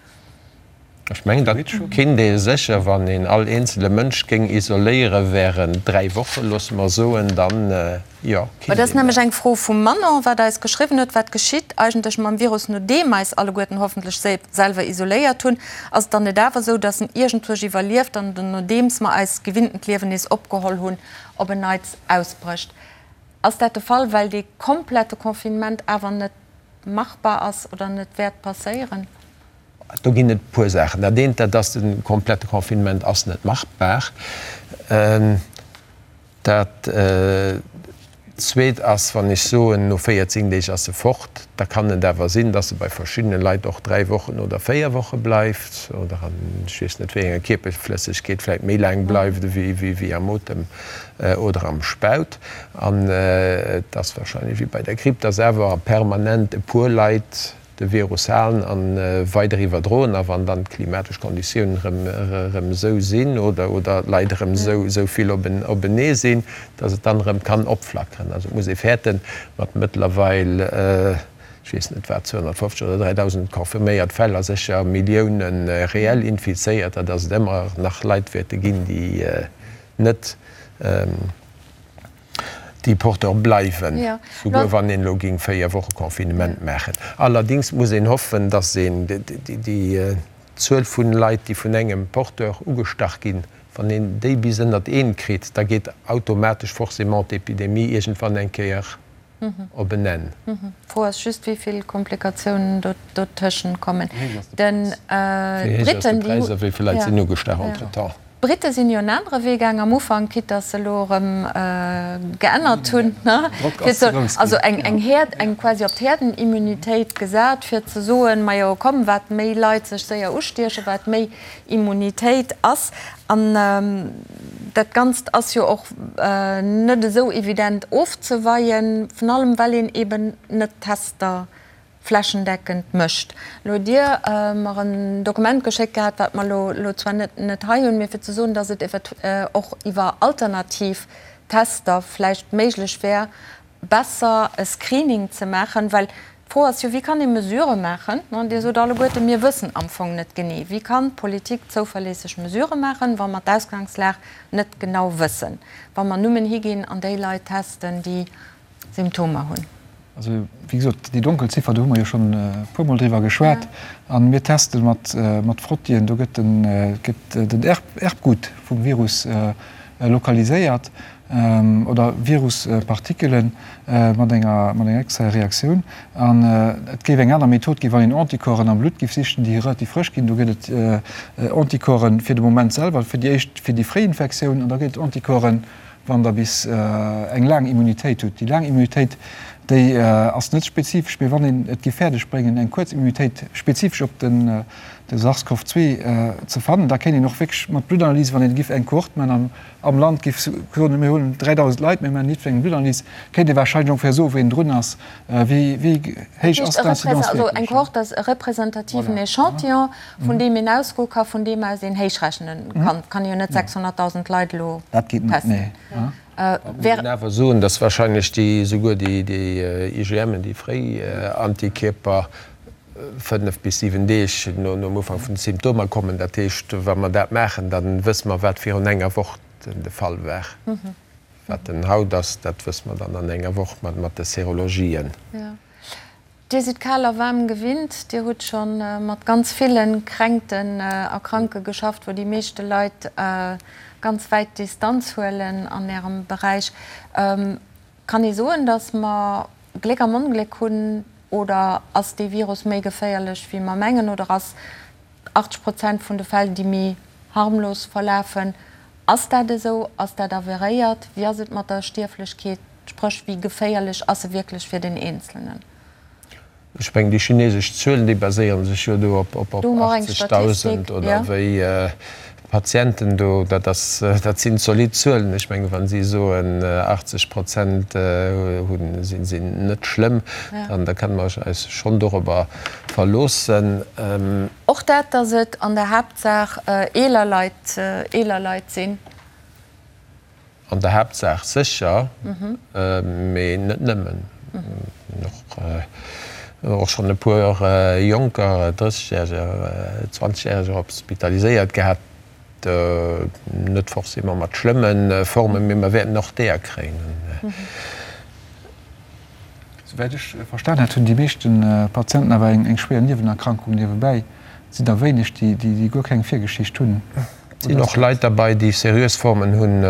Ech mengen, dat kinnt ee sécher, wann een all eenzele Mënsch géing isoléiere während 3 Wochen, loosse mer soen, dann, jo, kinnt een dat. Dat ass nämlech eng Fro vum Manon, wat eis geschriwwen huet, Wat geschitt eigentlech mam Virus, nodeem eis alleguerten hoffentlech selwer isoléiert hunn? Ass et dann net awer esou, datt en iergendwuerch iwwerlieft an nodeems mer eist gewinntent Liewen nees opgeholl hunn, op en Neits ausbrécht? Ass dat de Fall, well dee komplette Confinement awer net machbar ass oder net wäert passéieren? Do ginn et e puer Saachen. Dat eent, dat ass, de komplette Confinement ass net machbar. Dat Zweet ass, wann ech soen, no 14 Deeg ass e fort, da kann et awer sinn, dass e bei verschiddene Leit och dräi Wochen oder véier Woche bleift oder an ech weess net wéi enger Kierperflëssegkeet vläicht méi laang bleift ewéi am Otem oder am Spaut. An et ass wahrscheinlech wéi bei der Gripp, dass awer permanent e puer Leit de Virus halen a weider iwwerdroen. A wann dann d'klimatesch Konditiounen erëm esou sinn oder oder d'Leit erëm esou vill openee sinn, datt et dann erëm kann opflackeren. Also et muss ee fäerten, mat mëttlerweil, ech weess net wat, 250 oder 3.000 confirméiert Fäll a sécher Millioune reell Infizéierter, datt et ëmmer nach Leit wäerte ginn, déi net, déi Porteur bleiwen, souguer wann een elo géing 4 Woche Confinement maachen. Allerdings muss een hoffen, datt een déi Zuel vun Leit, déi vun engem Porteur ugestach ginn, wann een déi bis ënnert een kritt, da geet automatesch forcément d'Epidemie iergendwann eng Kéier. Op en Enn. D'Fro ass just, wéi vill Komplikatiounen dotëschent kommen. D'Britten, déi hu. Wéi vill Leit sinn ugestach entretemps? D'Britte sinn jo en anere Wee gaang am Ufank, quitte datt se elo erëm geännert hunn, fir ze, also eng, eng Häerd, eng quasi op d'Häerdenimmunitéit gesat, fir ze soen, majo komm, wat méi Leit sech séier ustiechen, wat méi Immunitéit ass. An dat Ganzt ass jo och net esou evident ofzeweien, vun allem well een eben net Tester flächendeckend mécht. Elo hutt Dir mer en Dokument geschéckt gehat, wat mer elo zwar net hei hunn, mee fir ze soen, datt et och iwwer alternativ Tester vläicht méiglech wär, besser e Screening ze maachen, well d'Fro ass jo, wéi kann ee Mesurë maachen? Dir sot alleguerte, mir wëssen am Fong net genee. Wéi kann d'Politik zouverléisseg Mesurë maachen, wa mer d'Ausgangslag net genau wëssen, wa mer nëmmen higinn an déi Leit testen, déi Symptomer hunn? Also, wéi gesot, déi Donkelziffer, do hu mer jo schonn e puermol driwwer geschwat. A mir teste mat Frottien, do gëtt den Erbgut vum Virus lokaliséiert. oder Viruspartikelen mat enger mat enger extraer Reaktioun. An et géif eng aner Method ginn, wann een Anticorpsen am Blutt géif sichen, déi relativ frësch ginn. Do gëtt et Anticorpsen fir de Moment selwer, fir déi éischt, fir déi fréi Infektioun, an da gëtt et Anticorpsen, wann Der bis eng laang Immunitéit hutt. Déi laang Immunitéit, déi ass net spezifesch, mee wann een et géif fäerdeg bréngen, eng kuerz Immunitéit spezifesch op den de SARS-CoV-2 ze fannen, da kéint een och wierklech mat Bluttanalyse, wann een géif eng Kohort man am am Land géif soen, mir hunn 3.000 Leit, mir maachen jiddwerengem Bluttanalyse, kéint ee warscheinlech ongeféier soen, wéi een drun ass, wéi wéi héich ass d'Incidence wierklech. Also eng Kohort ass e representativen Echantillon, vun deem een ausgoe ka, vun deem aus een héichrechnen kann. Et kann ee jo net 600.000 Leit elo Dat geet net, testen. nee. Da muss een awer soen, datt warscheinlech déi, souguer déi IgMen, déi fréi Antikierper, 5 bis 7 Deeg nom Ufank vun de Symptomer kommen. Dat heescht, wa mer dat maachen, da wësse mer, wat virun enger Woch de Fall war. Wat en haut ass, dat wësse mer dann an enger Woch mat de Serologien. Dir sidd kal a waarm gewinnt. Dir hutt scho mat ganz ville Kränkten a Kranke geschafft, wou déi meeschte Leit ganz wäit Distanz huelen an Ärem Beräich. Kann ee soen, datt mer Gléck am Ongléck hunn oder ass dee Virus méi geféierlech wéi mer mengen oder ass 80 Prozent vun de Fäll déi méi harmlos verlafen? Ass dat esou? Ass dat averéiert? Wéi ass et mat der Stierflechkeet, spréch wéi geféierlech ass e wierklech fir den Eenzelnen? Ech mengen, déi chinesesch Zuelen, déi baséiere sech jo do op 80.000 oder wéi Patienten do. Dat ass, dat sinn zolidd Zuelen. Ech mengen, wa si soen, 80 Prozent hunn, sinn net schlëmm, dann da kënne mer eis schonn dorobber verloossen. Och dat, datt et an der Haaptsaach eeler Leit, eeler Leit sinn. An der Haaptsaach sécher, mee net nëmmen. Och schonn e puer Jonker, Drëssegjäreger, Zwanzegjäreger hospitaliséiert gehat, net forcément mat schlëmme Formen, mee mer wäerten och deeër kréien. Souwäit ech verstan hat, hunn déi meeschte Patienten awer eng schwéier Niewenerkrankung niewebäi. Et sinn der wéineg, déi guer keng Virgeschicht hunn. Et sinn och Leit derbei, déi seriös Formen hunn,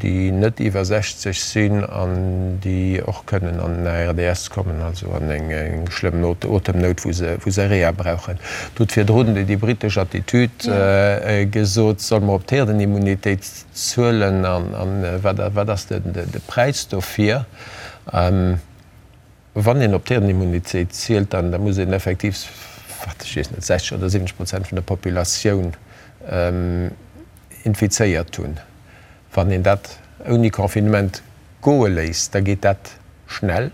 déi net iwwer 60 sinn an déi och kënnen an en ARDS kommen, also an eng schlëmm Otemnout, wou se Reha brauchen. Et huet virdrun déi britesch Attitüd gesot, Solle mer op d'Herdenimmunitéit zuelen an wat ass de Präis dofir? Wann een op d'Herdenimmunitéit zielt, dann da muss een effektiv, wat ech weess net, 60 oder 70 Prozent vun der Populatioun infizéiert hunn. Wann een dat ouni Confinement goe léisst, da geet dat schnell.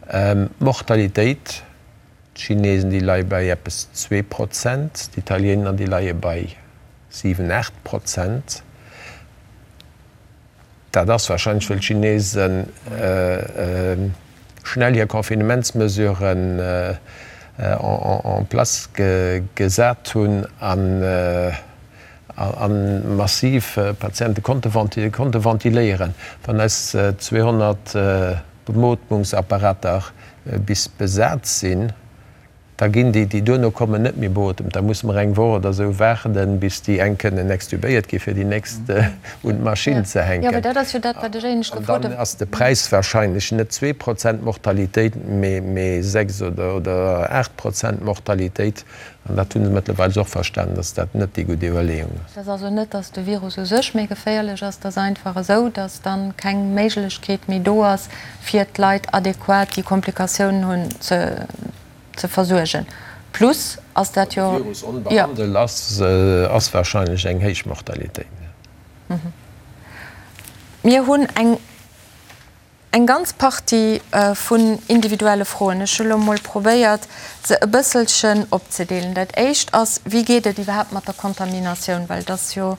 D'Mortalitéit, d'Chinesen déi leie bei eppes 2%, d'Italiener déi leie bei 7, 8%. Dat ass warscheinlech, wëll d'Chinesen schnell hir Confinementsmesuren en place gesat hunn a massiv Patiente konnte ventiléieren. Wann eis 200 Bemootmungsapparater bis besat sinn. Da ginn déi, déi duerno kommen, net méi beotemt. Da musse mer eng Woch oder esou waarden, bis déi eng kënnen extubéiert ginn, fir déi nächst un d'Maschinn ze hänken. An dann ass de Präis wahrscheinlech net 2 Prozent Mortalitéit, mee 6 oder 8 Prozent Mortalitéit. An dat hu se mëttlerweil och verstanen, dass dat net déi gutt Iwwerleeung ass. Et ass also net, dass de Virus u sech méi geféierlech ass, et ass einfach esou, dass dann keng Méiglechkeet méi do ass, fir d'Leit adequat, déi Komplikatiounen hunn, ze ze versuergen. Plus ass dat jo. Wann de Virus onbehandelt ass, ass wahrscheinlech eng héich Mortalitéit. Mir hunn eng eng ganz Partie vun individuelle Froen. Ech hu lo mol probéiert, se e bësselchen opzedeelen. Dat éischt ass, Wéi geet et iwwerhaapt mat der Kontaminatioun? Well et ass jo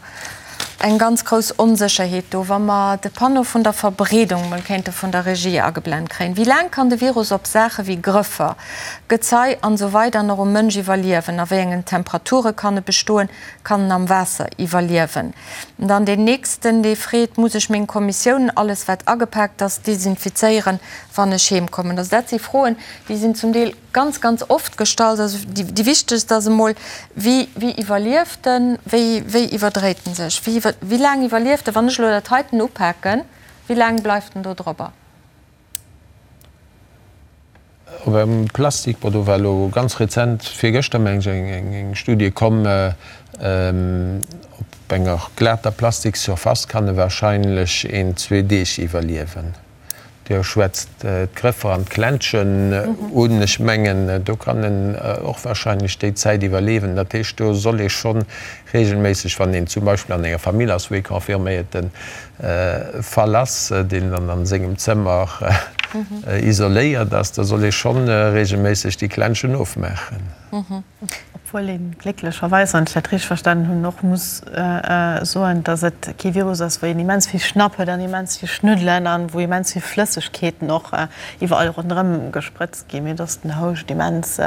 eng ganz grouss Onsécherheet do. Wa mer de Panneau vun der Verbreedung mol kéinte vun der Regie ageblent kréien. Wéi laang kann de Virus op Saache wéi Grëffer, Gezei an esou weider nach um Mënsch iwwerliewen? A wéi engen Temperature kann e bestoen? Kann en am Waasser iwwerliewen? Dann deen nächsten, dee freet, Muss ech meng Kommissiounen, alles wat agepaakt ass, desinfizéieren, wann ech heem kommen? Also dat si Froen, déi sinn zum Deel ganz, ganz oft gestallt. Also déi wichtegst ass emol, Wéi, wéi iwwerlieft en? Wéi, wéi iwwerdréit en sech? Wéi, wéi laang iwwerlieft en? Wann ech elo dat heiten upaken, wéi laang bleift en do drobber? Op engem Plastik, bon do war elo ganz rezent, virgëschter meng ech, eng, eng Studie komm, op enger glater Plastikssurface kann e wahrscheinlech een, zwee Deeg iwwerliewen. Dir schwätzt d'Grëffer an d'Klenschen un. Ech mengen, do kann en och wahrscheinlech déi Zäit iwwerleewen. Dat heescht, do soll ee scho regelméisseg, wann een zum Beispill an enger Famill ass, wou ee confirméierte Fall ass, deen dann a sengem Zëmmer isoléiert ass, da soll ee scho regelméisseg déi Klenschen ofmaachen. Obwuel ee glécklecherweis, wann ech dat richteg verstanen hunn, och muss soen, datt et kee Virus ass, wou een immens vill Schnapp huet an immens vill Schnuddelen an wou immens vill Flëssegkeeten och iwwerall ronderëm gesprëtzt ginn, mee datt den Houscht immens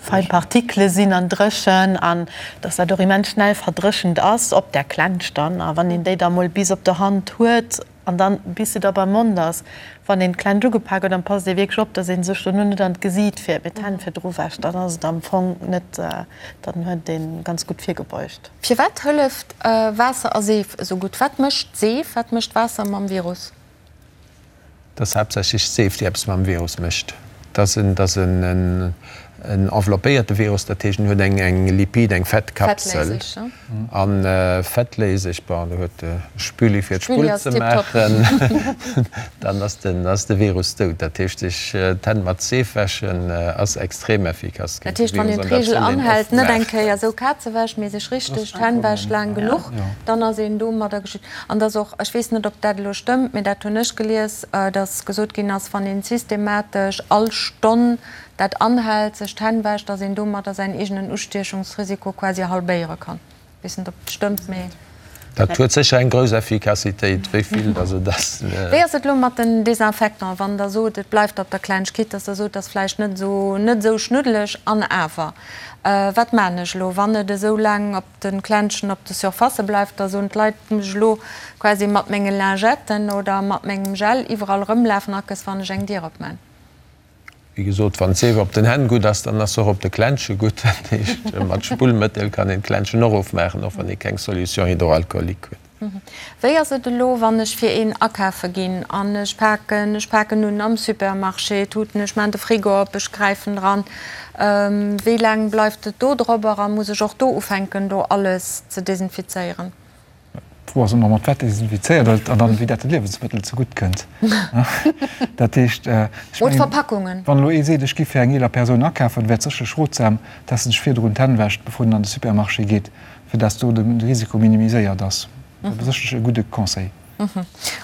fein Partikele sinn an dréchen an datt dat och immens schnell verdréchent ass op där Klensch dann. A wann een déi da mol bis op der Hand huet, An dann, bis se da beim Mond ass, wann een d'Klensch ugepak huet, dann passt ee wierklech op, dass ee sech dono net an d'Gesiit fiert, mee d'Hänn virdru wäscht. Dann ass et am Fong net, dann huet ee ganz gutt virgebeugt. Firwat hëlleft Waasser a Seef esou gutt? Wat mécht d'Seef, wat mécht Waasser mam Virus? Et ass haaptsächlech d'Seef, déi eppes mam Virus mécht. Et ass en enveloppéierte Virus, dat heescht en huet eng Lipid, eng Fettkapsel. A fettléiseg, bon, do huet de Spüli fir d'Spull ze maachen, dann ass de Virus dout. Dat heescht, sech d'Hänn mat Seef wäschen ass extrem effikass géint de Virus. Dat heescht, wann een d'Reegel anhält, net eng Kéier esou Kazewäsch, mee sech richteg d'Hänn wäscht laang genuch, dann ass een domadder geschützt. An dass och, ech weess net, ob dat elo stëmmt, mee dat hunn ech gelies, dass gesot ginn ass, wann een systematesch all Stonn dat anhält, sech d'Hänn wäscht, dass een domadder säin eegenen Ustiechungsrisiko quasi halbéiere kann. Ech weess net, ob dat stëmmt, mee. Dat huet sécher eng grouss Effikassitéit. Wéi vill dass et ass. Wéi ass et elo mat den Désinfectants, wann Der sot, et bleift op der Klengkeet, dass Der sot, et ass vläicht net esou, net esou schnuddeleg an awer, wat maachen ech elo, wann et esou laang op de Klenschen op de Surfacë bleift, da soen d'Leit, muss ech elo quasi mat menge Lingetten oder mat mengem Gel iwwerall erëmlafen, akes wann ech eng Dier opman. Wéi gesot, wann d'Seef op den Hänn gutt ass, dann ass se och op de Klensche gutt. Dat heescht, mat Spullmëttel kann een d'Klenschen och ofmaachen, och wann ee keng Solution hydroalcoolique huet. Wéi ass et elo, wann ech fir een akafe ginn an ech paken, ech paken un am Supermarché Tuten, ech maan de Frigo op, ech gräifen dran, wéi laang bleift et do drobber a muss ech och do ufänken do alles ze desinfizéieren? D'Fro ass ëmmer, mat wat desinfizéiert gëtt an dann wéi dat de Liewensmëttel zegutt kënnt. Dat heescht, ech mengen, wann elo ee seet, ech gi fir eng eeler Persoun akafen, wär et sécherlech rotsam, dass en sech virdrun d'Hänn wäscht, bevor en an de Supermarché geet. Fir dass do de Risiko minimiséiert ass. Dat ass sécherlech e gudde Conseil.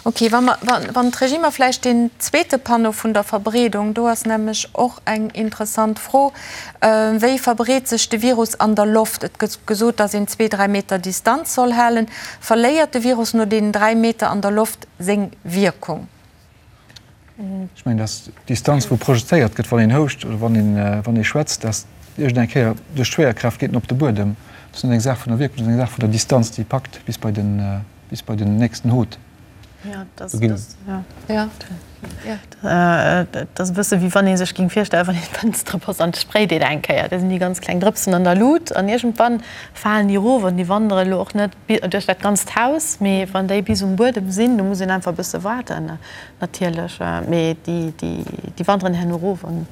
Ok, wa mer, wann d'Regie mer vläicht deen zweete Panneau vun der Verbreedung, do ass nämlech och eng interessant Fro, Wéi verbreet sech de Virus an der Loft? Et gëtt gesot, dass een zwee, dräi Meter Distanz soll halen. Verléiert de Virus no deenen dräi Meter an der Loft seng Wierkung? Ech mengen, dass d'Distanz, wou projezéiert gëtt, wann een houscht oder wann een, wann ee schwätzt, dass iergend eng Kéier duerch d'Schwéierkraaft geet en op de Buedem. Dat ass net eng Saach vun der Wierkung, dat ass eng Saach vun der Distanz, déi packt bis bei den, bis bei den nächsten Hot. Do ginn. Et ass e bësse wéi wann ee sech géing virstellen, wann een d'Fënstere botzt an et sprayt een eng Kéier, da sinn déi ganz kleng Drëpsen an der Lut an iergendwann falen déi erof an déi wandere elo och net duerch dat ganzt Haus, mee wann déi bis um Buedem sinn, do muss een einfach e bësse waarden natierlech, mee déi wanderen herno erof an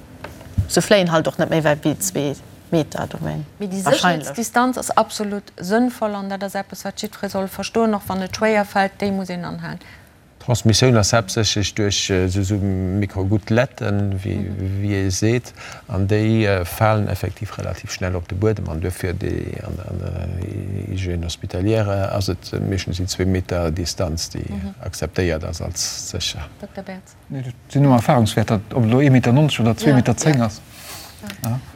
se fléien halt och net méi wäit wéi zwee Meter do, mee Mee déi wahrscheinlech. Sécherheetsdistanz ass absolut sënnvoll an dat ass eppes, wat jiddweree soll verstoen, och wann et schwéier fält, déi muss een anhalen. D'Transmissioun ass haaptsächlech duerch esou Microgouteletten, wéi ee seet, an déi falen effektiv relativ schnell op de Buedem. An duerfir an der Hygiène hospitalière ass et meeschtens déi zwee Meter Distanz, déi akzeptéiert ass als sécher. Dokter Bertz. Nee, dat sinn nëmme Erfahrungswäerter, ob et elo ee Meter 90 oder zwee Meter 10 ass.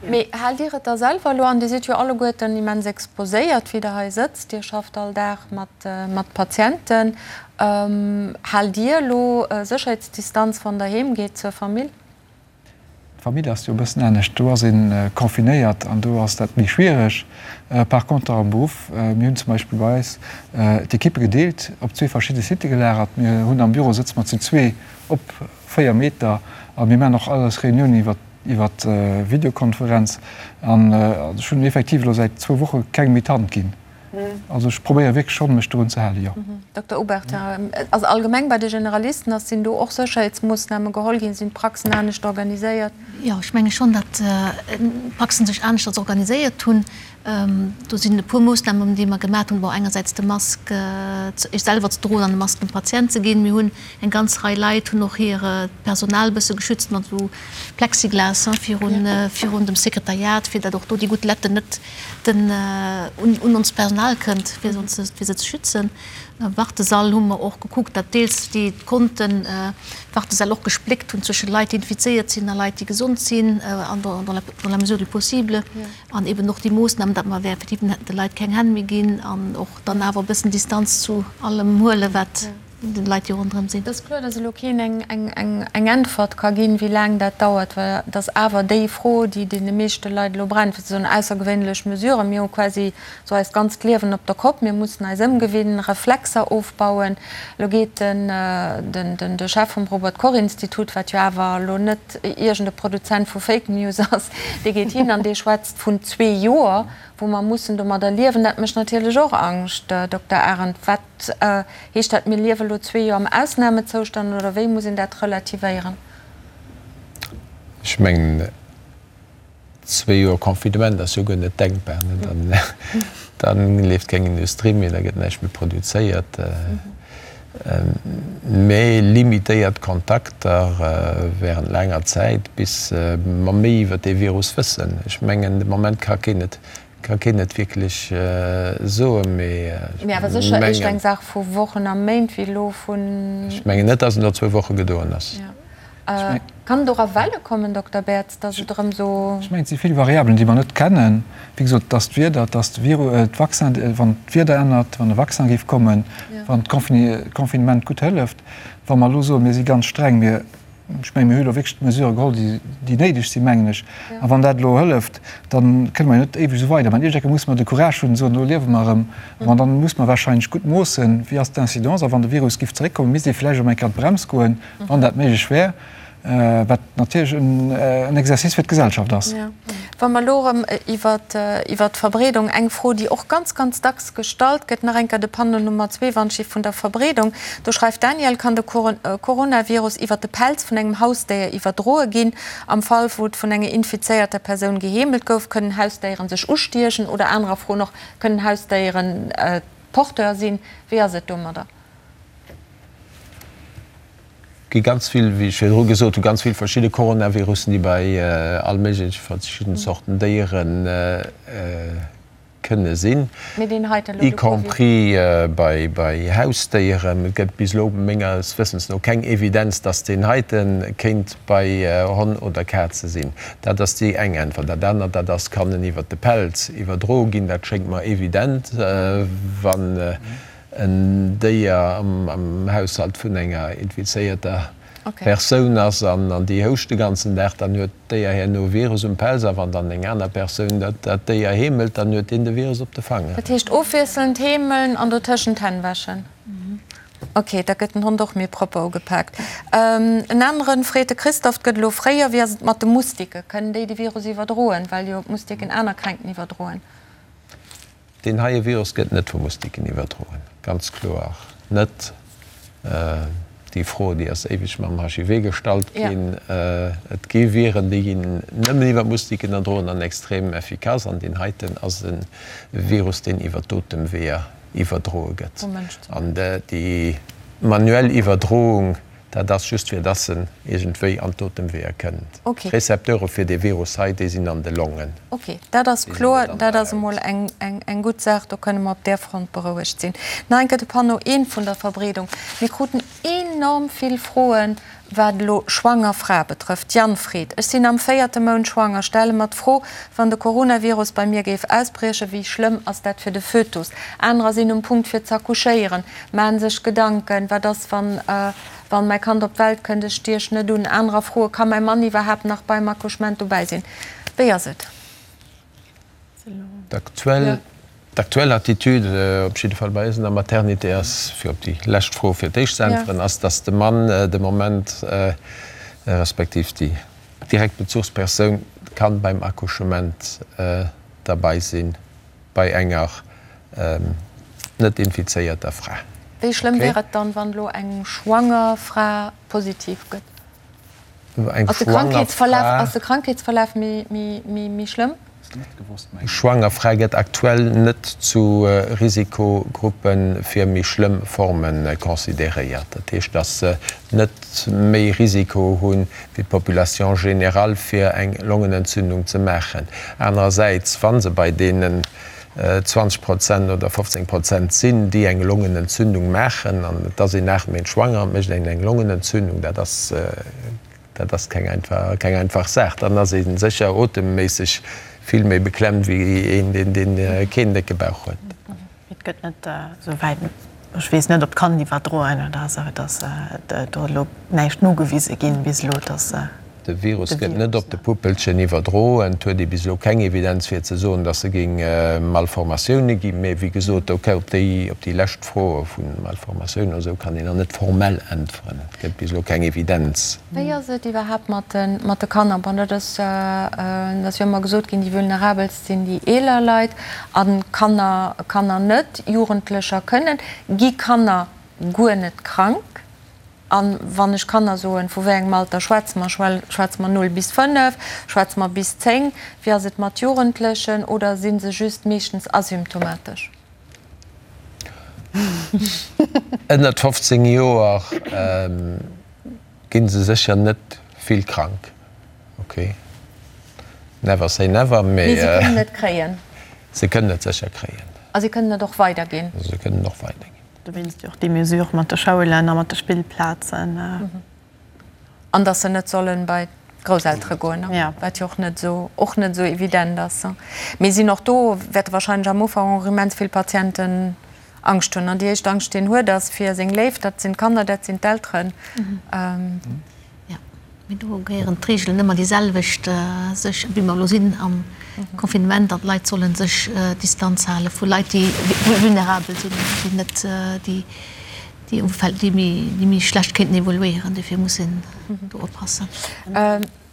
Mee haalt Dir et da selwer elo an? Dir sidd jo alleguerten immens exposéiert, wéi Der hei sëtzt. Dir schafft all Dag mat Patienten. Haalt Dir elo Sécherheetsdistanz, wann Der heem geet zur Famill? D'Famill ass jo e bëssen anescht. Do ass ee confinéiert an do ass dat méi schwiereg. Par conter am Beruff, mir hunn zum Beispill bei eis d'Ekippe gedeelt, op zwee verschidde Sitte gelagert. Mir hunn am Büro sëtze mer zu zwee op 4 Meter a mir maachen och all eis Reuniounen iwwer iwwer Videokonferenz. An ech hunn effektiv elo säit zwou Woche kengem méi d'Hand ginn. Also ech probéiere wierklech schonn, mech dorun ze halen, jo. Dokter Obertin, also allgemeng bei de Generalisten, ass, sinn do och Sécherheetsmoossname geholl ginn? Sinn d'Praxen anescht organiséiert? Jo, ech menge schonn, datt d'Praxen sech aneschters organiséiert hunn. Do sinn e puer Moossnamen, déi mer gemaat hunn. Bon, engersäits de Mask selwer ze droen an de Mask dem Patient ze ginn. Mir hunn eng ganz Rei Leit hunn och hiert Personal e bësse geschützt mat esou Plexiglas virun, virun dem Sekretariat, fir datt och do déi Goutteletten net den un onst Personal kënnt, fir se ze schützen. Am Wartesall hu mer och gekuckt, datt deels déi konnten d'Wartesäll och gespléckt hunn zwësche Leit, déi infizéiert sinn a Leit, déi gesond sinn, an dans la mesure du possible. An eben och déi Moossnamen, datt mer effektiv de Leit keng Hänn méi ginn an och dann awer e bëssen Distanz zu allem huelen, wat den Leit, déi ronderëm sinn. Et ass kloer, dass elo keen eng Äntwert ka ginn, wéi laang dat dauert, well et ass awer déi Fro, déi deene meeschte Leit elo brennt, fir ze soen, aussergewéinlech Mesuren, mir hu quasi esou eist ganzt Liewen op der Kopp, mir mussen eis ëmgewinnen, Reflexer ofbauen. Elo geet de Chef vum Robert-Koch-Institut, wat jo awer elo net iergend e Produzent vu Fake News ass, dee geet hin an dee schwätzt vun zwee Joer, wou mer mussen domadder liewen. Dat mécht natierlech och Angscht, Dokter Arendt. Wat Heescht dat, mir liewe lo zwee Joer am Ausnamezoustand oder wéi muss een dat relativéieren? Ech mengen, zwee Joer Confinement ass jo guer net denkbar. Da leeft keng Industrie méi, da gëtt näischt méi produzéiert. Mä limitéiert Kontakter während laanger Zäit, bis mer méi iwwer dee Virus wëssen. Ech mengen, de Moment ka keen et Ka keen et wierklech soen, mee ech Mee awer sécher éischt eng Saach vu Wochen a Méint wéi elo vun. Ech mengen net, datt et no zwou Woche gedoen ass. Kann et och a Welle kommen, Dokter Bertz, datt et erëm esou. Ech mengen, et si vill Variabelen, déi mer net kennen. Wéi gesot, et ass d'Wieder, et ass de Virus, d'Vaccin, wann d'Wieder ännert, wann e Vaccin géif kommen, wann d'Confinement gutt hëlleft. Wa mer elo soen, mir si ganz streng, mir Ech mengen, mir hu elo wierklech d'Mesurë geholl, déi néideg sinn, mengen ech. A wann dat elo hëlleft, da kënne mer jo net éiweg esou weidermachen. Iergendeng Kéier musse mer de Courage hunn, soen, elo liewe mer erëm. An dann muss mer wahrscheinlech gutt moossen, wéi ass d'Incidence. A wann de Virus giff zeréckkommen, misst ee vläicht erëm eng Kéier an d'Brems goen, wann dat méiglech wär, wat natierlech en Exercice fir d'Gesellschaft ass. Wa mer elo erëm iwwert d'Verbreedung, eng Fro, déi och ganz, ganz dacks gestallt gëtt, nach eng Kéier de Panneau Nummer zwee, Wandschif vun der Verbreedung. Do schreift d'Danièle, Kann de Coronavirus iwwert de Pelz vun engem Hausdéier iwwerdroe ginn? Am Fall, wou et vun enger infizéierter Persoun geheemelt gouf, kënnen Hausdéieren sech ustiechen? Oder anerer Fro noch, Kënnen Hausdéieren Porteur sinn? Wéi ass et domadder? Gi ganz vill, wéi ech virdru gesot hunn, ganz vill verschidde Coronavirussen, déi bei all méigleche verschidden Zorten Déiere kënne sinn, y compris bei Hausdéieren. Et gëtt bis elo menges Wëssens no keng Evidenz, dass deen heite kéint bei Honn oder Kaze sinn. Dat ass déi eng Äntwert. Dat anert, dat ass, kann en iwwert de Pelz iwwerdroe ginn? Dat schéngt mer evident, wann en Déier am Haushalt vun enger infizéierter Persoun ass an déi houscht de ganzen Dag, dann huet d'Déier herno e Virus um Pelz a wann dann eng aner Persoun dat Déier heemelt, dann huet deen de Virus op de Fanger. Dat heescht ofwiesselnd heemeln an dotëschent d'Hänn wäschen? Ok, da gëtt den Hond och méi propper ugepaakt. En aneren freet de Christophe, 't gëtt elo fréier, wéi ass et mat de Moustiquen? Kënnen déi de Virus iwwerdroen, well jo d'Moustiquen aner Kränkten iwwerdroen? Deen heie Virus gëtt net vu Moustiquen iwwerdroen, ganz kloer net. Déi Fro, déi ass éiweg mam HIV gestallt ginn. Et gi Viren, déi ginn nëmmen iwwer Moustiquen erdroen an extrem effikass. An deen heiten ass e Virus, deen iwwer d'Otemweeër iwwerdroe gëtt. An déi manuell Iwwerdroung, dat ass just fir dass en iergendwéi an d'Otemweeër kënnt. D'Recepteure fir dee Virus hei, déi sinn an de Longen. Ok, dat ass kloer. Dat ass emol eng gutt Saach. Do kënne mer op där Front berouegt sinn. Nach eng Kéier de Panneau 1 vun der Verbreedung. Mir kruten enorm vill Froen, wat elo schwanger Frae betrëfft. D'Jann freet, Ech sinn am véierte Mount schwanger, stelle mer d'Fro, wann de Coronavirus bei mir géif ausbriechen, wéi schlëmm ass dat fir de Fötus? Anerer sinn um Punkt fir z'accouchéieren, maachen sech Gedanken, wat ass wann wann mäi Kand op d'Welt kënnt, ech stiech net un. Anerer froe, Ka mäi Mann iwwerhaapt nach beim Accouchement dobäi sinn? Wéi ass et? D'aktuell D'aktuell Attitude, op jidde Fall bei eis an der Maternité, ass, fir op déi lescht Fro fir d'éischt ze äntweren, ass, dass de Mann de Moment, respektiv déi direkt Bezuchspersoun kann beim Accouchement derbei sinn bei enger net infizéierter Fra. Wéi schlëmm wär et dann, wann elo eng schwanger Fra positiv gëtt? Eng schwanger Fra. Ass de Krankheetsverlaf méi schlëmm? Eng schwanger Fra gëtt aktuell net zu Risikogruppe fir méi schlëmm Forme consideréiert. Dat heescht, datt se net méi Risiko hu wéi d'Population générale fir eng Longenentzündung ze maachen. Anerersäits, wa se bei deenen 20 Prozent oder 15 Prozent sinn, déi eng Longenentzündung maachen, an et ass een 8 Méint schwanger an et mécht een eng Longenentzündung, dat ass, dat ass keng einfach, keng einfach Saach. Dann ass ee sécher otemméisseg vill méi beklemmt wéi een, deen, deen keen décke Bauch huet. Et gëtt net esou wäit, ech weess net, ob d'Kand iwwerdroen oder esou, et ass do elo näischt nogewise ginn bis elo, dass de. De Virus gëtt net op de Puppelchen iwwerdroen. Et huet ee bis elo keng Evidenz fir ze soen, dass e géing Malformatioune ginn. Mee wéi gesot, ok, op déi, op déi lescht Fro vu Malformatiounen oder esou kann een nach net formell äntweren. Et gëtt bis elo keng Evidenz. Wéi ass et iwwerhaapt mat de, mat de Kanner? Bon, dat ass, dat ass jo ëmmer gesot ginn, déi vulnerabelst sinn déi eeler Leit a Kanner, Kanner net, Jugendlecher kënnen. Gi Kanner guer net krank? A wann ech Kanner soen, vu wéi engem Alter schwätze mer? Schwätze mer 0 bis 5? Schwätze mer bis 10? Wéi ass et mat Jugendlechen? Oder si se just meeschtens asymptomatesch? Ënnert 15 Joer gi se sécher net vill krank. Ok, never say never, mee. Mee se kënnen et kréien. Se kënnen et sécher kréien. A se kënnen et och weiderginn. Se kënnen och weiderginn. Dowéinst jo och déi Mesure mat de Schoulen a mat de Spillplazen. An datt se net solle bei d'Grousseltere goen, wat jo och net esou, och net esou evident ass. Mee sinn och do wäerte wahrscheinlech am Ufank och immens vill Patienten Angscht hunn. An déi éischt Angscht, déi een huet, ass fir seng Léif, dat sinn d'Kanner, dat sinn d'Elteren. Jo, mee do gehéieren d'Reegelen ëmmer déi selwecht, sech, wéi mer elo sinn am Confinement, an d'Leit solle sech Distanz hale vu Leit, déi vulnerabel sinn, déi net, déi, déi Umfeld, déi méi, déi méi schlecht kéinten evoluéieren. Dofir muss een do oppassen.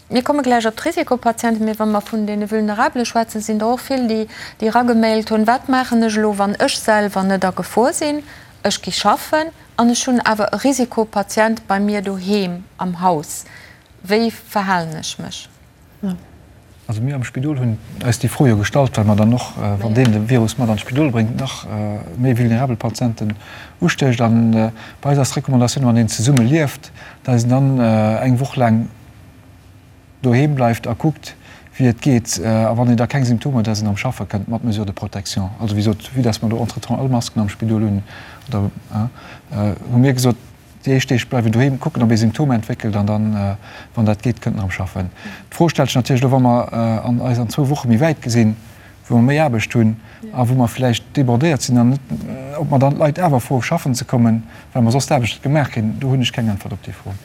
Mir komme gläich op d'Risikopatienten, mee wa mer vun deene Vulnerabele schwätzen, sinn der och vill, déi déi eragemailt hunn, Wat maachen ech elo, wann ech selwer net a Gefor sinn, ech gi schaffen an ech hunn awer e Risikopatient bei mir doheem am Haus? Wéi verhalen ech mech? Also mir am Spidol hunn eis déi Fro jo gestallt, well mer dann och, wann deen de Virus mat an d'Spidol bréngt, nach méi vulnerabel Patienten ustécht. An bei eis ass d'Recommandatioun, wann een zesumme lieft, datt een dann eng Woch laang doheem bleift a kuckt, wéi et geet. A wann een da keng Symptomer huet, datt een erëm schaffe kënnt mat Mesures de protection. Also wéi gesot, vue datt mer do entretemps all Masken am Spidol hunn, oder hu mir gesot, Déi éischt Deeg bleiwen doheem, kucken, ob ee Symptomer entwéckelt an dann, wann dat geet, kënnt en erëm schaffen. D'Fro stellt sech natierlech elo, wa mer an eis an zwou Woche méi wäit gesinn, wou mer méi Aarbecht hunn a wou mer vläicht débordéiert sinn an net, ob mer dann d'Leit awer froe schaffen ze kommen, well mer soss d'Aarbecht net gemaach kréien. Do hunn ech keng Äntwert op déi Fro.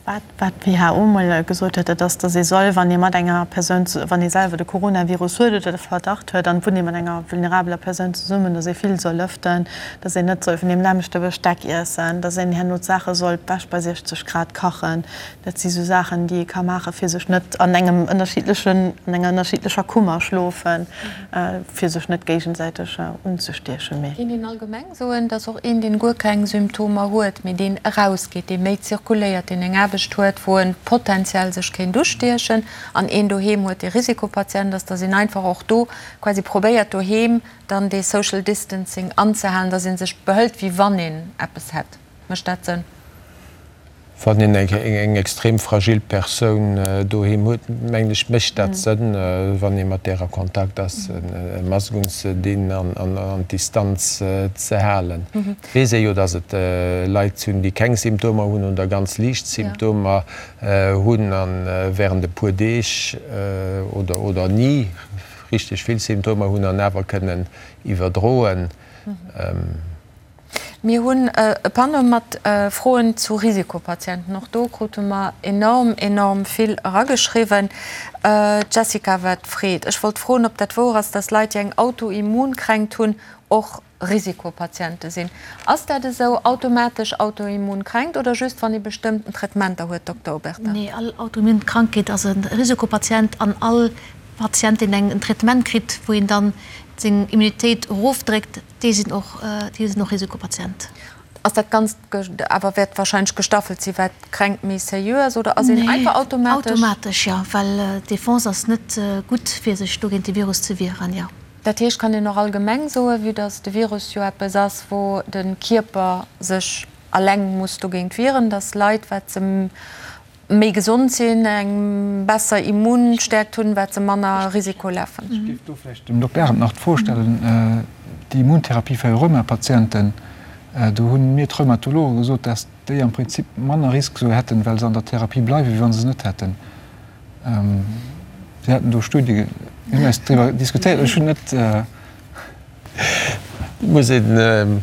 Wat d'WHO mol gesot huet, dat ass, datt ee soll, wann ee mat enger Persoun, wann ee selwer de Coronavirus huet oder de Verdacht huet an wunnt ee mat enger vulnerabeler Persoun zesummen, datt ee vill soll lëften, datt een net soll vun deem nämmlechte Besteck iessen, datt een herno d'Saache soll d'Wäsch bei 60 Grad kachen. Dat si sou Saachen, déi ee ka maachen, fir sech net an engem ënnerschiddlechen, an enger ënnerschiddlecher Kummer schlofen, fir sech net géigesäiteg unzestiechen. Mee. Kéint een allgemeng Soen, dass och een, deen guer keng Symptomer huet, mee deen erausgeet, dee méi zirkuléiert, deen eng Aarbecht huet, wou en potenziell sech kéint ustiechen, an een doheem huet, dee Risikopatient ass, dass een einfach och do quasi probéiert, doheem dann dee Social Distancing anzehalen, dass ee sech behëlt, wéi wann een eppes hätt. Mécht dat Sënn? Wann een eng extrem fragil Persoun doheem huet, mengen ech, mécht dat Sënn, wann ee mat där a Kontakt ass, e Mask unzedinn an d'Distanz ze halen. Et weess ee jo, datt et Leit hunn, déi keng Symptomer hunn oder ganz liicht Symptomer hunn a wärend e puer Deeg oder ni richteg vill Symptomer hunn an awer kënnen iwwerdroen. Mir hunn e Panneau mat Froen zu Risikopatienten. Och do krute mer enorm, enorm vill erageschriwwen. D'Jessica wat freet, Ech wollt froen, ob dat wouer ass, dass Leit, déi eng Autoimmunkränkt hunn, och Risikopatiente sinn. Ass dat esou, automatesch Autoimmunkränkt oder just wann ee bestëmmten Traitementer huet, Dokter Obertin? Nee, all Autoimmunkrankheet ass e Risikopatient an all Patient, deen en Traitement kritt, wou een dann seng Immunitéit erofdréckt, Déi sinn och, déi sinn och Risikopatient. Ass dat Ganzt awer wäert wahrscheinlech gestaffelt sinn, wat d'Kränkt méi sérieux ass, oder ass een einfach automatesch? Nee, automatesch jo, well d'Defense ass net gutt fir sech do géint de Virus ze wieren, jo. Dat heescht, kann een och allgemeng soen, vue dass de Virus jo eppes ass, wou de Kierper sech alleng muss dogéint wieren, dass Leit, wat se méi gesond sinn, eng besser Immunstäerkt hunn, wat se manner Risiko lafen. Ech géif do vläicht dem Dokter Arendt nach d'Fro stellen, déi Immuntherapie fir Rheumapatienten, do hu mir d'Rheumatologe gesot, dass déi am Prinzip manner Risk esou hätten, well se an der Therapie bleiwen, wéi wa se se net hätten. Si haten do Studie, mir hunn eis driwwer diskutéiert, ech hunn net. Et muss een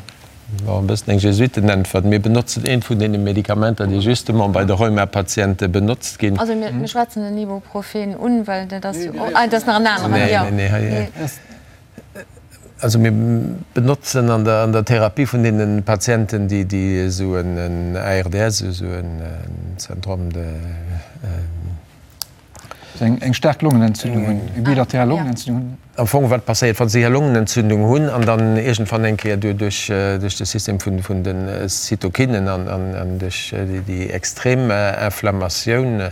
Bon, e bëssen eng Jesuitenäntwert. Mir benotzen eent vun deene Medikamenter, déi justement bei de Rheumapatiente benotzt ginn. Also mir schwätzen den Ibuprofen un, well dat ass jo, ah, dat ass nach en aneren, jo. Nee, nee, nee. Also mir benotzen an der, an der Therapie vun deene Patienten, déi, déi esou en ARDS, esou en Syndrome de. Eng staark Longenentzündung hunn, eng bilateral Longenentzündung hunn. Am Fong, wat passéiert, wa se hir Longenentzündung hunn an dann iergendwann eng Kéier duerch de System vun de Zytokinen an duerch déi extrem Inflammatioun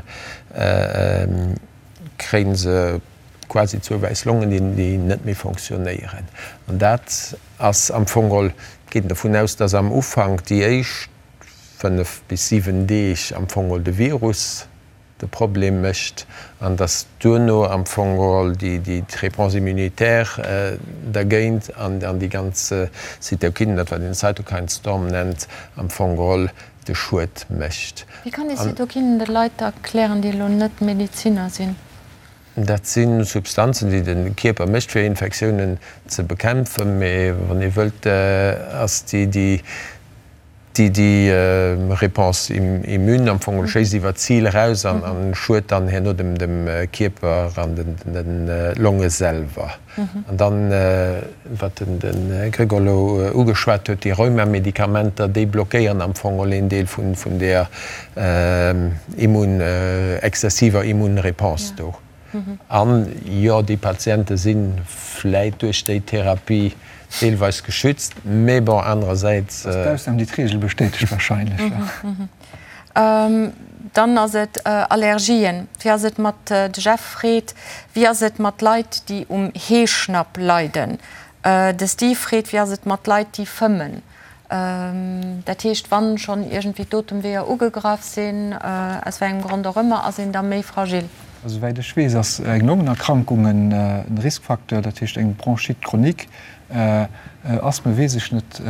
kréie se quasi zwou wäiss Longen, déi net méi fonctionnéieren. An dat ass am Fong geholl, et geet een dovun aus, dass am Ufank déi éischt 5 bis 7 Deeg am Fong geholl de Virus de Problem mécht an dass duerno am Fong geholl déi d'Réponse immunitaire dergéint an déi ganz Zytokinen, dat wat een Cytokine Storm nennt, am Fong geholl de Schued mécht. Wéi kann ee Zytokinen de Leit erklären, déi elo net Medeziner sinn? Dat si Substanzen, déi de Kierper mécht, fir Infektiounen ze bekämpfen. Mee wann ee wëllt, ass déi Déi Réponse immune am Fong schéisst iwwer d'Zil eraus an schued dann herno dem Kierper an de Longe selwer. An dann, wat de Gregor elo ugeschwat huet, déi Rheumamedikamenter, déi blockéieren am Fong een Deel vun där immun, exzessiver Immunréponse do. An jo, déi Patiente si vläit duerch déi Therapie deelweis geschützt, mee bon, anerersäits. Dat ass d'Ausnam, déi d'Reegel bestätegt wahrscheinlech. Dann ass et Allergien. Wéi ass et mat, de Jeff freet, wéi ass et mat Leit, déi um Heeschnapp leiden? De Steve freet, wéi ass et mat Leit, déi fëmmen? Dat heescht, wann schonn iergendwéi d'Otemweeër ugegraff sinn, aus wéi engem Grond och ëmmer, ass een da méi fragil. Also souwäit ech weess, ass eng Longenerkrankung en Riskfacteur, dat heescht eng Bronchite chronique. Asthme weess ech net,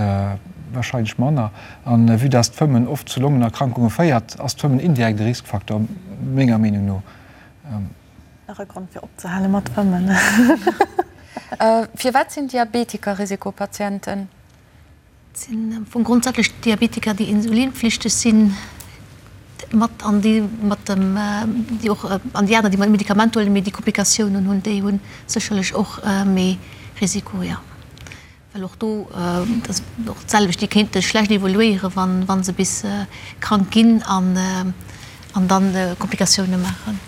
wahrscheinlech manner. An vue dass d'Fëmmen oft zu Longenerkrankunge féiert, ass d'Fëmmen indirekt e Riskfacteur, menger Meenung no. Nach e Grond fir opzehale mat fëmmen. Firwat sinn Diabetiker Risikopatienten? Et sinn am Fong grondsätzlech Diabetiker, déi insulinpflichteg sinn. mat an déi mat dem, déi och, an déi aner, déi Medikament huelen, mee déi Komplikatiounen hunn, déi hu sécherlech och méi Risiko, jo. Well och do, dat ass och d'selwecht, déi kéinte schlecht evoluéieren, wa wa se bis krank ginn an an dann Komplikatioune maachen.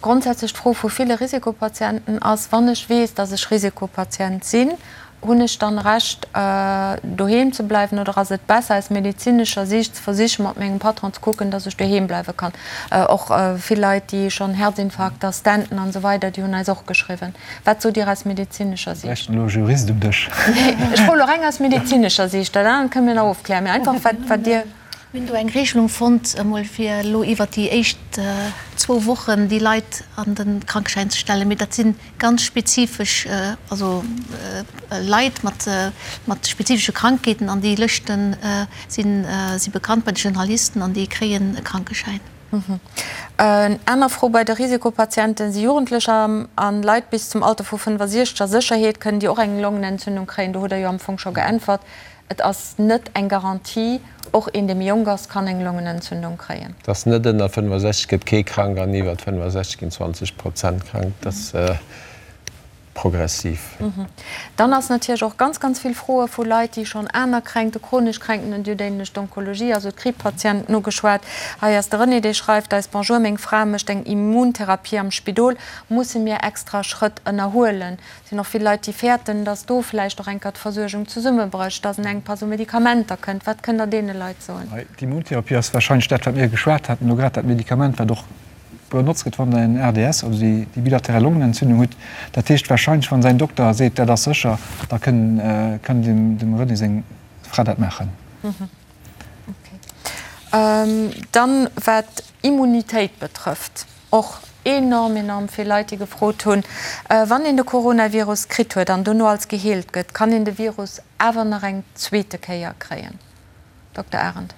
Grondsätzlech d'Fro vu ville Risikopatienten ass, Wann ech weess, datt ech Risikopatient sinn, hunn ech dann Recht doheem ze bleiwen oder ass et besser aus medezinescher Siicht ze versichen, mat mengem Patron ze kucken, datt ech doheem bleiwe kann? Och vill Leit, déi schonn Herzinfarkter, Stenten an esou weider, déi hunn eis och geschriwwen. Wat sot Dir aus medezinescher Siicht? Bräichten elo e Jurist um Dësch. Nee, ech froe elo reng aus medezinescher Siicht. Dat anert kënne mir nach ofklären. Mee einfach, wat, wat Dir. Mir hunn do eng Regelung fonnt, emol fir elo iwwert déi éischt zwou Wochen déi Leit an de Krankeschäin ze stellen. Mee dat si ganz spezifesch, also Leit mat, mat spezifesche Krankheeten an déi Lëschte sinn, si bekannt bei de Generalisten an déi kréien e Krankeschäin. En aner Fro bei de Risikopatienten, Si Jugendlecher an Leit bis zum Alter vu 65 a Sécherheet? Kënnen déi och eng Longenentzündung kréien? Do hutt Der jo am Fong scho geäntwert. Et ass net eng Garantie. Och een, dee méi jonk ass, kann eng Longenentzündung kréien. Et ass net, ënner 65 gëtt kee krank an iwwer 65 ginn 20 Prozent krank. Dat ass progressiv. Dann ass natierlech och ganz, ganz vill Froe vu Leit, déi schonn aner Kränkte, chronesch Kränkten hunn. Dir hutt éinlech d'Onkologie, also d'Kriibpatienten ugeschwat. Hei ass de René, dee schreift eis, Bonjour, meng Fra mécht eng Immuntherapie am Spidol. Musse mir extra Schrëtt ënnerhuelen? Et sinn och vill Leit, déi fäerten, datt do vläicht och eng Kéier d'Versuergung zesummebrécht, datt en Enkpass u Medikamenter kënnt. Wat kënnt Der deene Leit soen? D'Immuntherapie ass warscheinlech dat, wat mir geschwat haten elo grad, dat Medikament, wat och benotzt gëtt, wann Der en RDS, also déi bilateral Longenentzündung hutt. Dat heescht warscheinlech, wann säin Dokter seet, dat ass sécher, da kënn kënn dem dem René seng Fra dat maachen. Dann, wat Immunitéit betrëfft, och enorm, enorm vill Leit, déi gefrot hunn, wann een de Coronavirus kritt huet an dono als geheelt gëtt, kann een de Virus awer nach eng zweete Kéier kréien? Dokter Arendt.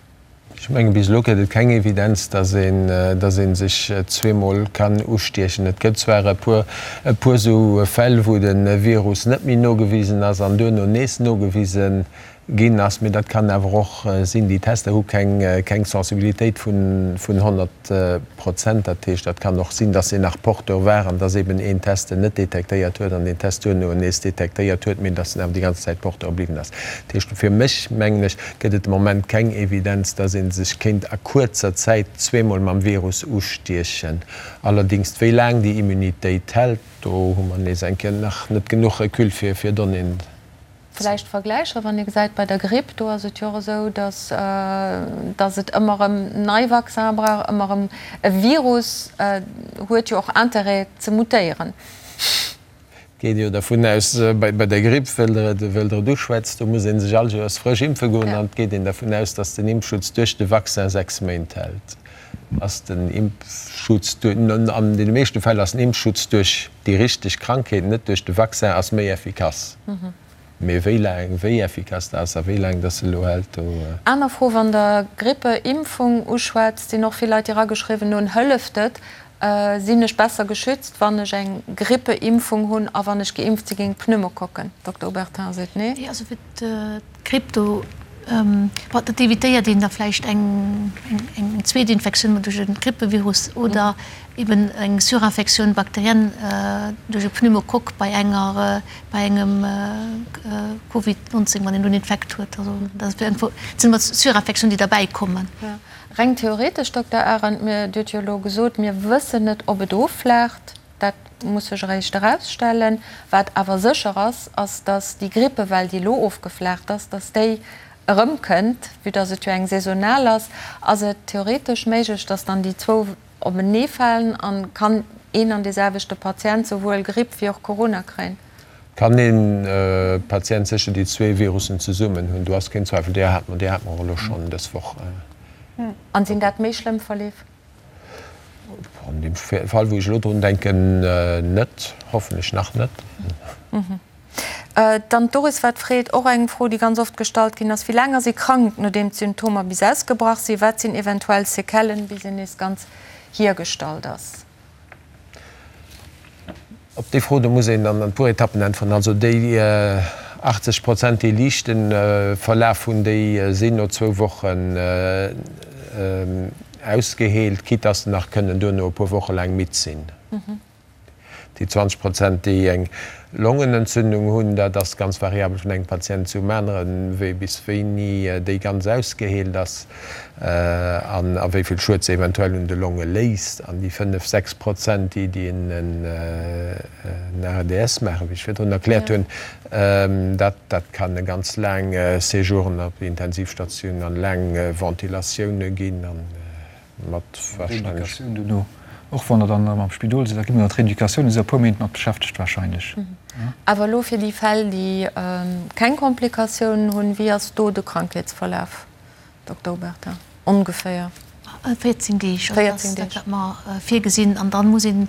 Ech mengen, bis elo gëtt et keng Evidenz, dass een, dass ee sech zweemol kann ustiechen. Et gëtt zwar e puer, e puer esou Fäll, wou de Virus net méi nogewisen ass an duerno nees nogewise ginn ass, mee dat kann awer och sinn, déi Tester hu keng, keng Sensibilitéit vun, vun 100 Prozent. Dat heescht, dat kann och sinn, dass en nach Porteur war an dass eben een Test en net detektéiert huet an deen Test duerno en nees detektéiert huet, mee dass en awer déi ganz Zäit Porteur bliwwen ass. Dat heescht, fir mech, mengen ech, gëtt et de Moment keng Evidenz, dass ee sech kéint a kuerzer Zäit zweemol mam Virus ustiechen. Allerdéngs, wéi laang déi Immunitéit hält, do hu mer nees eng Kéier nach net genuch Recul fir, fir Donnéeën ze. Vläicht Vergläicher, wann ee gesäit bei der Gripp, do ass et jo och esou, dass, dass et ëmmer erëm nei Vaccine brauch, ëmmer erëm e Virus huet jo och Intérêt ze mutéieren. Et geet jo dervun aus, bei der Gripp, wëll Der et, wëll Der et uschwätzt, do muss ee sech all Joers frësch impfe goen an et geet een dervun aus, dass den Impfschutz duerch de Vaccin 6 Méint hält. Ass den Impfschutz, an deene meeschte Fäll ass den Impfschutz duerch déi richteg Krankheet, net duerch de Vaccin, ass méi effikass. Mee wéi laang, wéi effikass dat ass a wéi laang dass se elo hält, do. Aner Fro, Wann Der Grippeimpfung uschwätzt, sinn och vill Leit, déi erageschriwwen hunn, Hëlleft et? Sinn ech besser geschützt, wann ech eng Grippeimpfung hunn a wann ech geimpft si géint Pneumokokken? Dokter Obertin seet nee. Nee, also fir d'Gripp, do, bon, dat evitéiert een da vläicht eng zweet Infektioun duerch e Grippevirus oder eben eng Surinfektioun bakterienne duerch e Pneumokokk bei enger, bei engem Covid 19, wann een do en Infekt huet. Also dat sinn ëmmer Surinfektiounen, déi derbäi kommen. Reng theoretesch, Dokter Arendt, mir, Dir hutt jo elo gesot, mir wëssen net, ob et offlaacht. Dat muss sech eréischt erausstellen. Wat awer sécher ass, ass, datt déi Grippewell, déi elo ofgeflaacht ass, datt déi erëmkënnt. Vue datt et jo eng saisonal ass, ass et theoretesch méiglech, datt dann déi zwou openeefalen a kann een an deeselwechte Patient souwuel Gripp wéi och Corona kréien. Kann ee Patient sécher déi zwee Virussen zesummen hunn? Do ass keen Zweifel. Déi hat mer, déi hat mer och elo schonn dës Woch. An sinn dat méi schlëmm Verleef? An deem Fall, wou ech elo drun denken, net. Hoffentlech nach net. Dann d'Doris wat freet, och eng Fro, déi ganz oft gestallt ginn ass, Wéi laang ass ee krank, nodeem d'Symptomer bis ausgebrach sinn? Wat sinn eventuell Séquellen, bis een nees ganz hiergestallt ass? Op déi Fro, do muss een an e puer Etappen äntweren. Also déi 80 Prozent, déi liichte Verlaf hunn, déi sinn no zwou Wochen. ausgeheelt, quitte dass se nach kënnen duerno e puer Woche laang midd sinn. Déi 20 Prozent, déi eng Longenentzündung hunn, dat ass ganz variabel vun engem Patient zum aneren, wéi bis wéini déi ganz ausgeheelt ass an a wéi vill Schued se eventuell un de Longe léisst. An déi 5, 6 Prozent, déi déi en ARDS maachen, wéi ech virdrun erkläert hunn, dat dat kann e ganz laang Séjouren op Intensivstatioun an laang Ventilatioune ginn. Mat wahrscheinlech. Rééducatioun duerno, och wann Der dann erëm am Spidol sidd, da gi mer iwwer d'Rééducatioun, do si e puer Méint mat beschäftegt wahrscheinlech. Awer elo fir déi Fäll, déi keng Komplikatiounen hunn, wéi ass do de Krankheetsverlaf, Dokter Obertin, ongeféier? 14 Deeg, also dat ass dat, wat mer virgesinn. An dann muss een,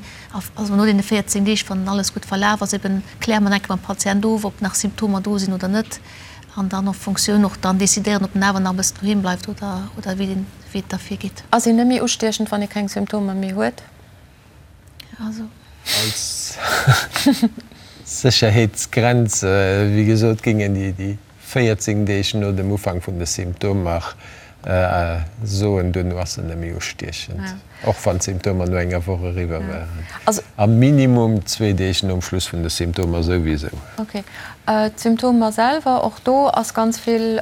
also no deene 14 Deeg, wann alles gutt verlaf ass, eben kläre mer nach eng Kéier mam Patient of, ob nach Symptomer do sinn oder net. An dann en Fonctioun och dann decidéieren, ob en awer nach e bëssen doheem bleift oder, oder wéi den. Wéi et da virgeet. Ass een net méi ustiechend, wann ee keng Symptomer méi huet? Also. Als Sécherheetsgrenz, wéi gesot, géingen déi 14 Deeg no dem Ufank vun de Symptomer soen, duerno ass en net méi ustiechend, och wann d'Symptomer no enger Woch eriwwer waren. A minimum zwee Deeg nom Schluss vun de Symptomer souwisou. Ok. D'Symptomer selwer, och do ass ganz vill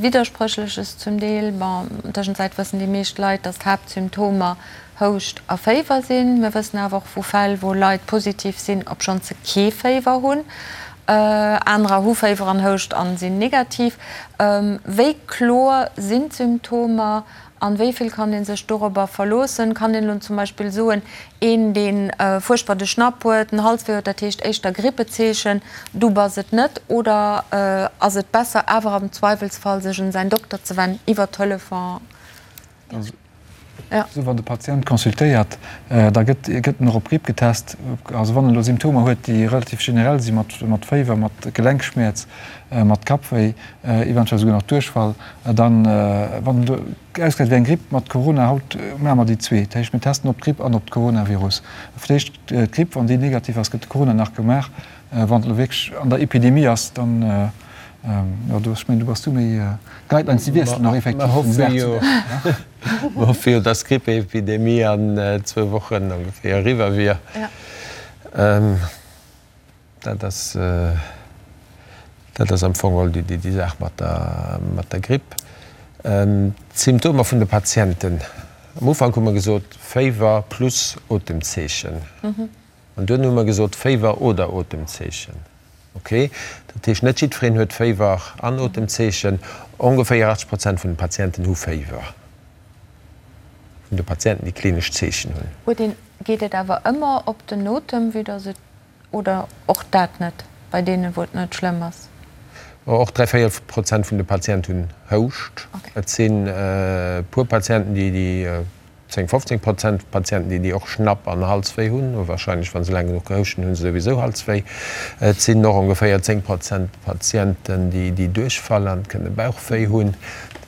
Widderspréchleches zum Deel. Bon, tëschenzäit wëssen déi meescht Leit, dass d'Haaptsymptomer Houscht a Féiwer sinn. Mir wëssen awer och vu Fäll, wou Leit positiv sinn, obschonn se kee Féiwer hunn. Anerer hu Féiwer an Houscht an sinn negativ. Wéi kloer sinn d'Symptomer An wéi vill kann ee sech dorobber verloossen? Kann een elo zum Beispill soen, een dee fuerchtbar de Schnapp huet, den Halswéi huet, dat heescht éischter Grippezeechen, du bass et net? Oder ass et besser awer am Zweiwelsfall sech un säin Dokter ze wennen iwwer Telefon? Also wann de Patient consultéiert, da gëtt gëtt en och op Gripp getest. Also wann en elo Symptomer huet, déi relativ generell si mat mat Féiwer, mat Gelenkschmäerz, mat Kappwéi, eventuell souguer nach Duerchfall, dann, wann en do ausgesäit wéi eng Gripp mat Corona, haut maache mer déi zwee, dat heescht mir testen op d'Gripp an op d'Coronavirus. Fir d'éischt d'Gripp, wann déi negativ ass, gëtt de Corona nach gemaach. Wann et elo wierklech an der Epidemie ass, dann, jo, do, ech mengen, do bass du méi, d'Guidelines déi wiesselen och effektiv vun Dag zu Dag. Mer hoffe jo, dass d'Grippeepidemie an zwou Wochen ongeféier eriwwer wier. Dat ass, dat ass am Fong geholl déi Saach mat der, mat der Gripp. D'Symptomer vun de Patienten, am Ufank hu mer gesot, Féiwer plus Otemzeechen. An duerno hu mer gesot, Féiwer oder Otemzeechen. Ok, dat heescht, net jiddwereen huet Féiwer an Otemzeechen. Ongeféier 80 Prozent vun de Patienten hu Féiwer, vun de Patienten, déi klinesch Zeechen hunn. Huet een, geet et awer ëmmer op den Otem, vue dass et Oder och dat net, bei deenen, wou et net schlëmm ass? Och dräivéierel Prozent vun de Patienten hunn Houscht. Et sinn e puer Patienten, déi, déi 10, 15 Prozent Patienten, déi, déi och Schnapp an Halswéi hunn. Wahrscheinlech, wa se laang genuch gehouscht hunn, hu se souwisou Halswéi. Et sinn och ongeféier 10 Prozent Patienten, déi, déi Duerchfall an kënne Bauchwéi hunn.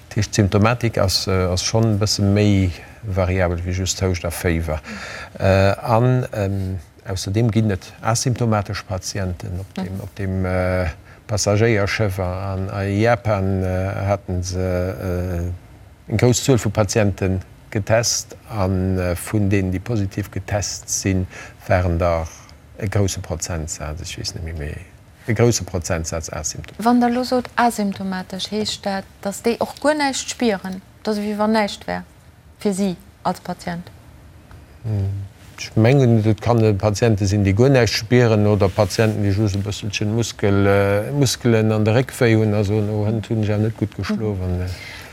Dat heescht, d'Symptomatik ass, ass schonn e bësse méi variabel wéi just Houscht a Féiwer. An Ausserdeem ginn et asymptomatesch Patienten. Op deem Passagéierschëff a Japan hate se eng grouss Zuel vu Patiente getest a vun deenen, déi positiv getest sinn, waren der e grousse Prozentsaz, ech weess net méi, mee e grousse Prozentsaz asymptomatesch. Wann Der elo sot asymptomatesch, heescht dat, datt déi och guer näischt spieren, datt ewéi wann näischt wär? Fir si als Patient? Ech mengen, et kann Patiente sinn, déi guer näischt spieren oder Patienten, déi just e bësselchen Muskelen an de Réck wéi hunn a soen, oh, hënt hunn ech awer net gutt geschlof.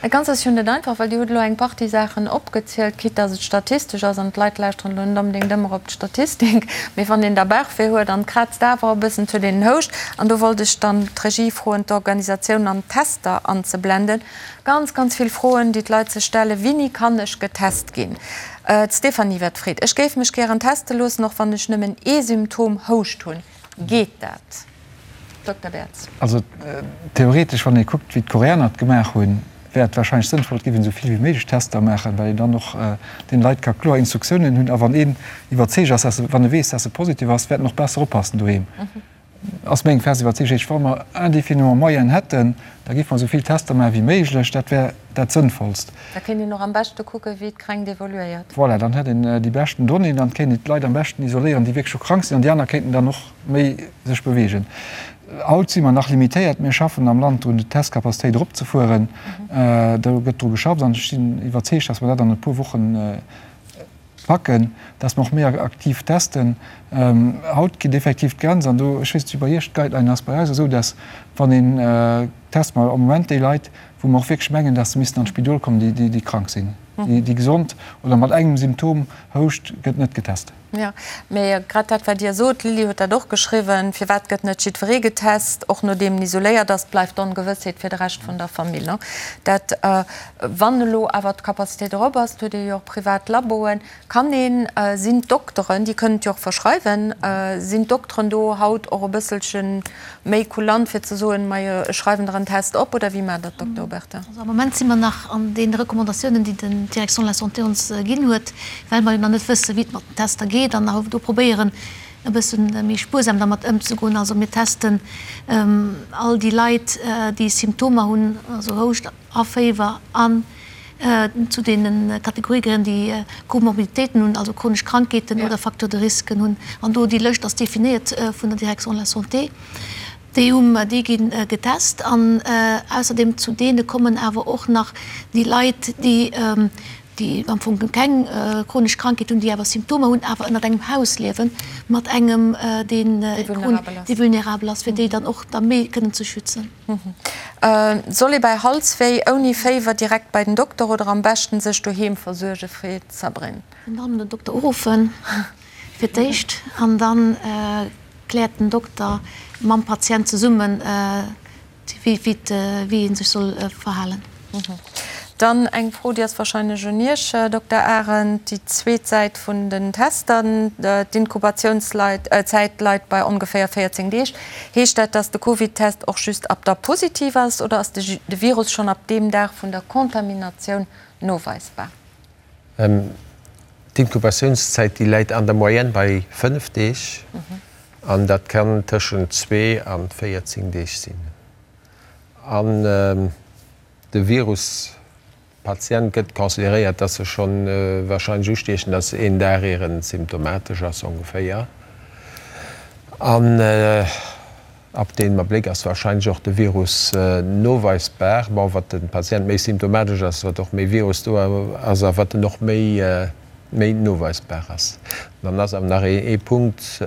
Dat Ganzt ass jo net einfach, well Dir hutt elo eng Partie Saachen opgezielt, quitte dass et statistesch ass an d'Leit lauschteren elo net onbedéngt ëmmer op d'Statistik, mee wann een da Bauchwéi huet an et kraazt awer e bëssen, et huet een en Houscht an do wollt ech dann d'Regie froen, d'Organisatioun an d'Tester anzeblenden. Ganz, ganz vill Froen, déi d'Leit sech stellen, Wini kann ech getest ginn? D'Stéphanie Wett freet, Ech géif mech gären teste loossen, och wann ech nëmmen ee Symptom, Houscht, hunn. Geet dat? Dokter Bertz. Also theoretesch, wann ee kuckt, wéi d'Koreaner et gemaach hunn, wär et warscheinlech sënnvoll, et géif een esou vill wéi méiglech Tester maachen, well een dann och deene Leit ka kloer Instruktiounen hunn. A wann een iwwerzeegt ass, dass e, wann e weess, dass e positiv ass, wäert en och besser oppassen doheem. Ass meng fest Iwwerzeegung. Wa mer indéfiniment Moyenen hätten, da géife mer esou vill Tester maache wéi méiglech. Dat wär. dat Sënnvollst. Da kéint een och am beschte kucken, wéi d'Kränkt evoluéiert. Voilà, dann hätt een déi beschten Donnéeën, dann kéint een d'Leit am beschten isoléieren, déi wierklech scho krank sinn, an déi aner kéinten dann och méi sech beweegen. Haut si mer nach limitéiert. Mir schaffen am Land drun, d'Testcapacitéit eropzefueren. Do gëtt dru geschafft an ech sinn iwwerzeegt, dass mer dat an e puer Wochen packen, dass mer och méi aktiv testen. Haut geet effektiv d'Grenz, an do, ech weess net, wéi bei Iech d'Guideline ass, bei eis ass esou, dass wann een test mer am Moment déi Leit, wou mer och wierklech mengen, dass se missten an d'Spidol kommen, déi, déi krank sinn. Déi gesond oder mat engem Symptom, Houscht, gëtt net getest. Jo, mee grad dat, wat Dir sot, d'Lili huet dat och geschriwwen, firwat gëtt net jiddweree getest, och nodeem en isoléiert ass, bleift d'Ongewëssheet fir de Rescht vun der Famill. Dat, wann elo awer d'Capacitéit erop ass, et huet ee jo och privat Laboen, kann een, sinn d'Dokteren, déi kënnen et jo och verschreiwen, sinn d'Dokteren do haut och e bësselche méi kulant fir ze soen, majo ech schreiwen der en Test op, oder wéi maacht der dat, Dokter Obertin? Also am Moment si mer nach an deene Recommandatiounen, déi den d'Direction de la Santé ons ginn huet, well mer jo nach net wësse wéi et mat den Tester geet an do probéieren e bësse méi spuersam dermat ëmzegoen. Also mir testen all déi Leit, déi Symptomer hunn, also Houscht a Féiwer an zu deene Kategorië gehéieren, déi Comorbiditéiten hunn, also chronesch Krankheeten oder Facteurs de risque hunn. An do déi Lëscht ass definéiert vun der Direction de la Santé. Déi hu mer, déi gi getest. An ausserdeem zu deene kommen awer och nach déi Leit, déi déi am Fong keng chronesch Krankheet hunn, déi awer Symptomer hunn, awer ënnert engem Haus liewen mat engem, deen vulnerabel ass, fir déi dann och da méi kënnen ze schützen. Soll ee bei Halswéi ouni Féiwer direkt bei den Dokter oder am beschten sech doheem versuerge freet d'Sabrine. Dann den Dokter uruffen fir d'éischt an dann kläert den Dokter mam Patient zesummen wéi ee sech soll verhalen. Dann eng Fro, déi ass wahrscheinlech un Iech, Dokter Arendt. Déi zweet Säit vun den Tester, d'Inkubatiounszäit leit bei ongeféier 14 Deeg. Heescht dat, dass de Covid-Test och just ab da positiv ass oder ass de Virus schonn ab deem Dag vun der Kontaminatioun noweisbar? D'Inkubatiounszäit, déi läit an der Moyenne bei 5 Deeg an dat kann tëschent zwee a 14 Deeg sinn. An de Virus Patient gëtt consideréiert, dass e schonn wahrscheinlech ustiechend ass, een Dag ier en symptomatesch ass ongeféier. An ab deem Abléck ass wahrscheinlech och de Virus noweisbar. Bon, wat de Patient méi symptomatesch ass, wat och méi Virus do ass a wat en och méi méi noweisbar ass. Dann ass awer nach ee Punkt,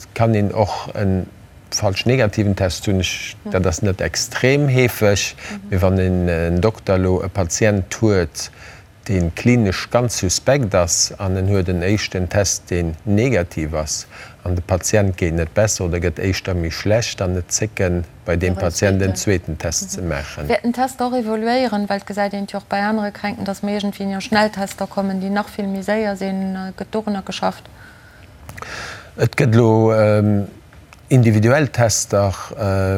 Et kann een och e falsch negativen Test hunn. Dat ass net extrem heefeg, mee wann en Dokter elo e Patient huet, dee klinesch ganz suspekt ass an en huet en éischten Test, deen negativ ass, an de Patient geet net besser oder gëtt éischter méi schlecht, dann net zécken, bei deem Patient en zweeten Test ze maachen. Wäert den Test och evoluéieren? Well et gesäit een et jo och bei anere Kränkten, dass mer iergendwéi no Schnelltester kommen, déi nach vill méi séier sinn. Gëtt dorunner geschafft? Et gëtt elo individuell Tester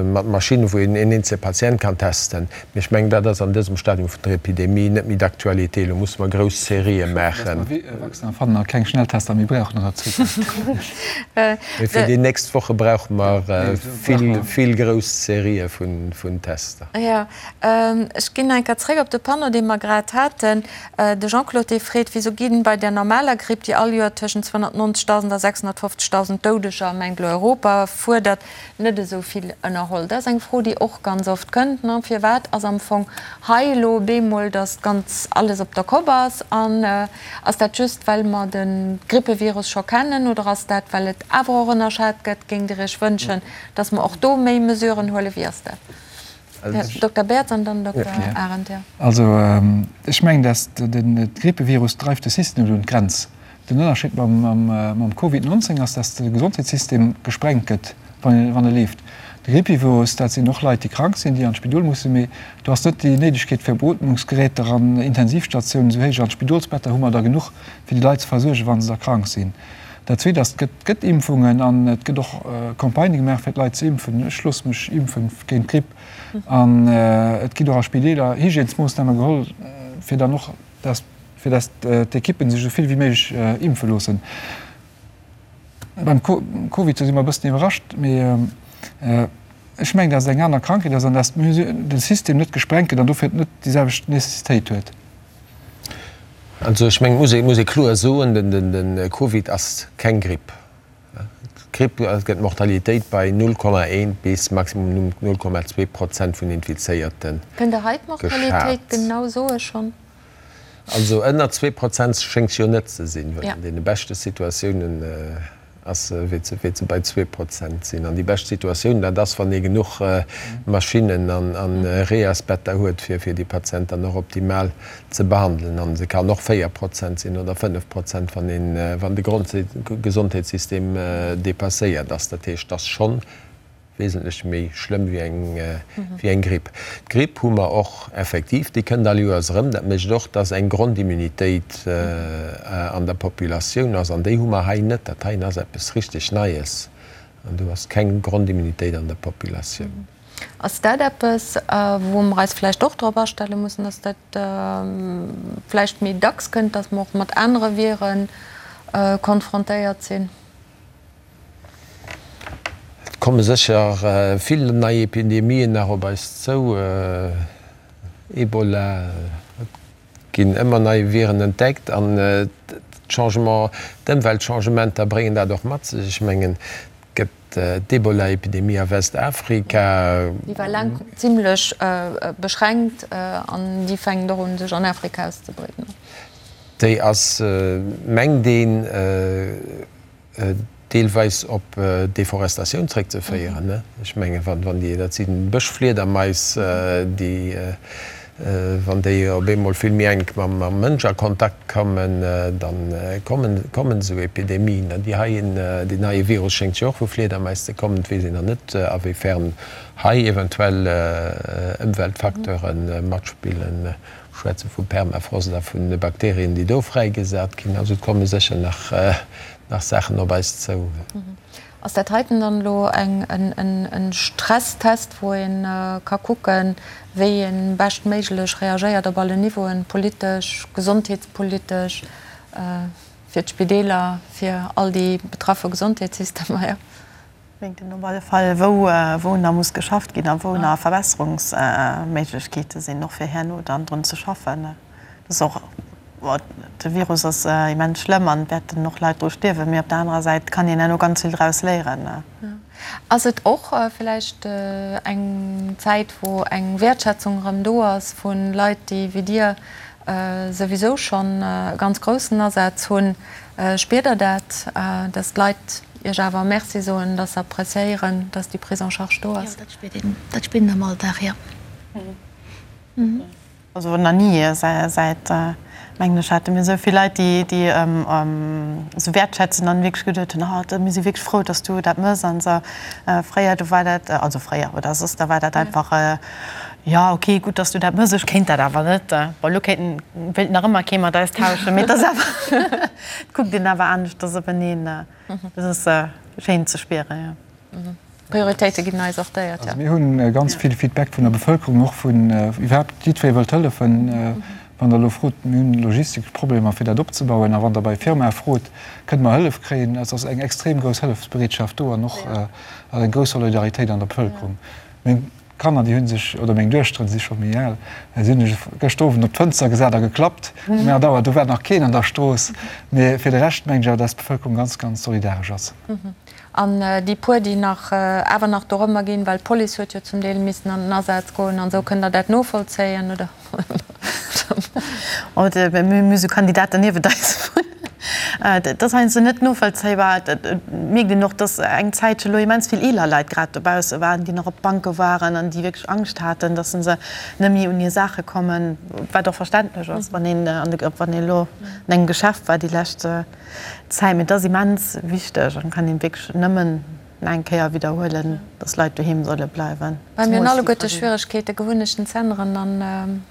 mat Maschinnen, wou een een eenzele Patient kann testen. Mee ech mengen, dat ass an dësem Stadium vun der Epidemie net méi d'actualité. Elo musse mer grouss Serië maachen. Dass mer Vaccin fannen a keng Schnelltester méi brauchen an der Zukunft. Mee fir déi nächst Woche brauche mer vill, vill grouss Serië vun Tester. Jo, ech ginn eng Kéier zréck op de Panneau, dee mer grad haten. De Jean-Claude dee freet, Wisou ginn bei der normaler Gripp, déi all Joer tëschent 290.000 a 650.000 Doudeger, mengt elo Europa, fuerdert, net esou vill ënnerholl? Dat ass eng Fro, déi och ganz oft kënnt, ne? Firwat ass am Fong hei elo bemol, datt ganz alles op der Kopp ass? An ass dat just, well mer de Grippevirus scho kennen, oder ass dat, well et awer och ënnerschat gëtt? Géingt Dir Iech wënschen, datt mer och do méi Mesuren huelen? Wéi ass dat? Dokter Baerts an dann Dokter Arendt, jo. Also ech mengen, dass de Grippevirus dreift de System net un d'Grenz. Den Ënnerscheed mam Covid 19 ass, dass de Gesondheetssystem gesprengt gëtt, wann e leeft. De Grippevirus, dat sinn och Leit, déi krank sinn, déi an d'Spidol mussen, mee do ass net déi Néidegkeet fir Beootmungsgeräter an Intensivstatiounen esou héich an d'Spidolsbetter hu mer der genuch, fir déi Leit ze versuergen, wa se da krank sinn. Dat Zweet ass, et gëtt Impfungen an et gëtt och Campagnë gemaach, fir d'Leit ze impfen. Ech loosse mech impfen géint d'Gripp. An et ginn och a Spideeler Hygiènesmoossname geholl, fir dann och, dass, fir dass d'Ekippen sech esou vill wéi méiglech impfe loossen. Beim Covid, do si mer e bëssen iwwerrascht, mee. Ech mengen, dass et eng aner Krankheet ass an dass de System net gesprengt gëtt an dofir net déi selwecht Nécessitéit huet. Also ech mengen, et muss ee kloer soen, de Covid ass keng Gripp. D'Gripp gëtt d'Mortalitéit bei 0,1 bis maximum 0,2 Prozent vun Infizéierte Kënnt Der hei d'Mortalitéit genau soe schonn? Also ënner 2 Prozent schéngt se jo net ze sinn, well an deene beschte Situatiounen ass se, wäert se bei 2 Prozent sinn. An déi bescht Situatioun, dat ass, wann ee genuch Maschinnen an Reasbetter huet, fir fir déi Patienten dann och optimal ze behandelen. An se kann och 4 Prozent sinn oder 5 Prozent, wann een, wann de Grondgesondheetssystem dépasséiert ass. Dat heescht, et ass schonn wesentlech méi schlëmm wéi eng, wéi eng Gripp. D'Gripp hu mer och effektiv, déi kënnt all Joers erëm. Dat mécht och, dass eng Grondimmunitéit an der Populatioun ass, an déi hu mer hei net. Dat heien ass eppes richteg Neies an do ass keng Grondimmunitéit an der Populatioun. Ass dat eppes, wou mer eis vläicht och drop astelle mussen, dass dat vläicht méi dacks kënnt, dass mer och mat anere Vire konfrontéiert sinn? Et komme sécher vill nei Epidemien nach op eis zou, Ebola, et ginn ëmmer nei Viren entdeckt an d'Changement, d'Ëmweltchangementer bréngen dat och mat sech. Ech mengen, et gëtt d'Ebola-Epidemie a Westafrika. Déi war laang zimlech beschränkt an déi fänkt och un sech an Afrika auszebreeden. Déi ass, mengt een, deelweis op Deforestatioun zréckzeféieren. Ech mengen, wann déi, dat si Bëschfliedermais, déi, wann déi op eemol vill méi enk mam Mënsch a Kontakt kommen, da kommen, kommen esou Epidemien. An déi heien, deen heie Virus schéngt jo och vu Fliedermais ze kommen. Et weess een nach net, awéifern hei eventuell Ëmweltfacteure matspillen. Schwätze vu Permafrost a vun Bakterien, déi do fräigesat ginn. Also et komme sécher nach nach Saachen op eis zou. Ass dat heiten dann elo eng en Stresstest, wou ee ka kucken, wéi ee beschtméiglech reagéiert op allen Niveauen, politesch, gesondheetspolitesch, fir d'Spideeler, fir all déi betraffe Gesondheetssystemer? Jo. Mengt een op alle Fall, wou wou nach muss geschafft ginn a wou nach Verbesserungsméiglechkeete sinn, och fir herno dann drun ze schaffen. Dat ass och, de Virus ass immens schlëmm an et wäerten och Leit dru stierwen, mee op der anerer Säit kann een herno ganz vill draus léieren. Ass et och vläicht eng Zäit, wou eng Wäertschätzung erëm do ass vu Leit, déi wéi Dir souwisou schonn e ganz groussen Asaz hunn? Spiert Der dat, dass d'Leit Iech awer Merci soen, dass se appréciéieren, dass déi Prise en charge do ass? Jo, dat spiert een, dat spiert een am Alldag, jo. Also nach ni säit, mengen ech, hate mir esou vill Leit, déi déi esou wäertschätzen an wierklech geduet hunn, oh mir si wierklech frou, dass du dat mëss an esou. Fréier, do war dat, also fréier oder soss, da war dat einfach, jo okay, gutt, dass du dat mëss, ech kéint dat awer net. Bon, elo kéinten, wéilt nach ëmmer kee mat eis tauschen, mee et ass awer, et kuckt een awer aneschters openeen. Dat ass schéin ze spieren, jo. D'Prioritéite ginn nei sortéiert, jo. Also mir hunn ganz vill Feedback vun der Bevëlkerung, och vun iwwerhaapt jiddweree wëllt hëllefen. Wann Der elo frot, mir hunn logistesch Problemer fir dat opzebauen, a wann Der bei Firmae frot, kënne mer Hëllef kréien, et ass eng extrem grouss Hëllefsbereetschaft do an och eng grouss Solidaritéit an der Bevëlkerung. Meng Kanner, déi hu sech, oder meng Duechteren, si scho méi al, si hunn sech gëschter Owend op d'Fënster gesat a geklappt. Um 8 Auer, do war nach keen an der Strooss. Mee fir de Rescht mengen ech awer, dass d'Bevëlkerung ganz, ganz solidaresch ass. An déi puer, déi nach awer nach dorëmmer ginn, well d'Police huet jo zum Deel missen an den Asaz goen an esou, kënnt Der dat novollzéien, oder? Mir hu sou Kandidaten niewent eis wunnen. Dat ass heiansdo net novollzéibar. Et mierkt een och, dass eng Zäitche lo immens vill eeler Leit grad dobausse waren, déi nach op d'Banke waren an déi wierklech Angscht haten, dass se net méi un hir Saache kommen, wat och verständlech ass, wann een wann een elo an engem Geschäft war déi lescht Zäit. Mee et ass immens wichteg an kann een wierklech nëmmen eng Kéier widderhuelen, dass Leit doheem solle bleiwen. Well mir hunn alleguerte Schwieregkeete Gewunnechten z'änneren an.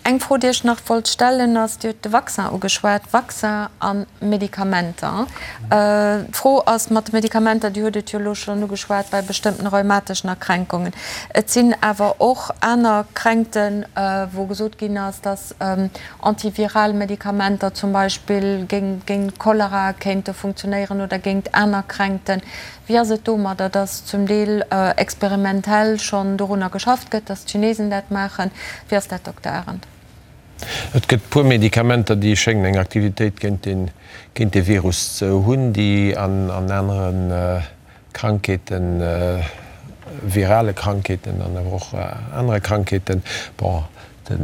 Eng Fro, déi ech nach wollt stellen, ass, Dir hutt de Vaccin ugeschwat, Vaccin a Medikamenter. D'Fro ass mat de Medikamenter, Dir hutt et jo elo schonn ugeschwat, bei bestëmmten rheumateschen Erkränkungen. Et sinn awer och aner Kränkten, wou gesot ginn ass, dass antiviral Medikamenter zum Beispill géint Cholera kéinte funktionéieren oder géint aner Kränkten. Wéi ass et domadder, dass zum Deel experimentell schonn dorunner geschafft gëtt, dass d'Chinesen dat maachen? Wéi ass dat, Dokter Arendt? Et gëtt e puer Medikamenter, déi schéngen eng Aktivitéit géint géint dee Virus ze hunn, déi an anere Krankheeten, virale Krankheeten an awer och anere Krankheeten, bon, de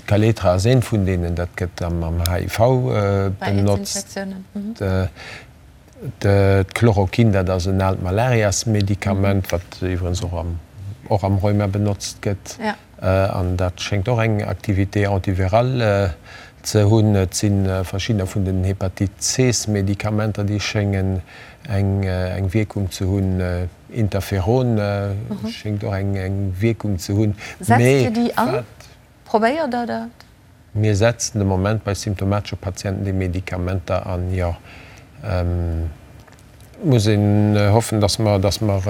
Kaletra ass eent vun deenen, dat gëtt am HIV benotzt. D'Chloroquin, dat ass en aalt Malariasmedikament, wat iwwerens och am och am Rheuma benotzt gëtt. An dat schéngt och eng Activité antivirale ze hunn. Et si verschiddener vun den Hepatite-C-Medikamenter, déi schéngen eng eng Wierkung ze hunn. Interferon schéngt och eng eng Wierkung ze hunn. Setzt Dir déi an? Probéiert Der dat? Mir setzen de Moment bei symptomatesche Patienten déi Medikamenter an, jo. Et muss een hoffen, dass mer, dass mer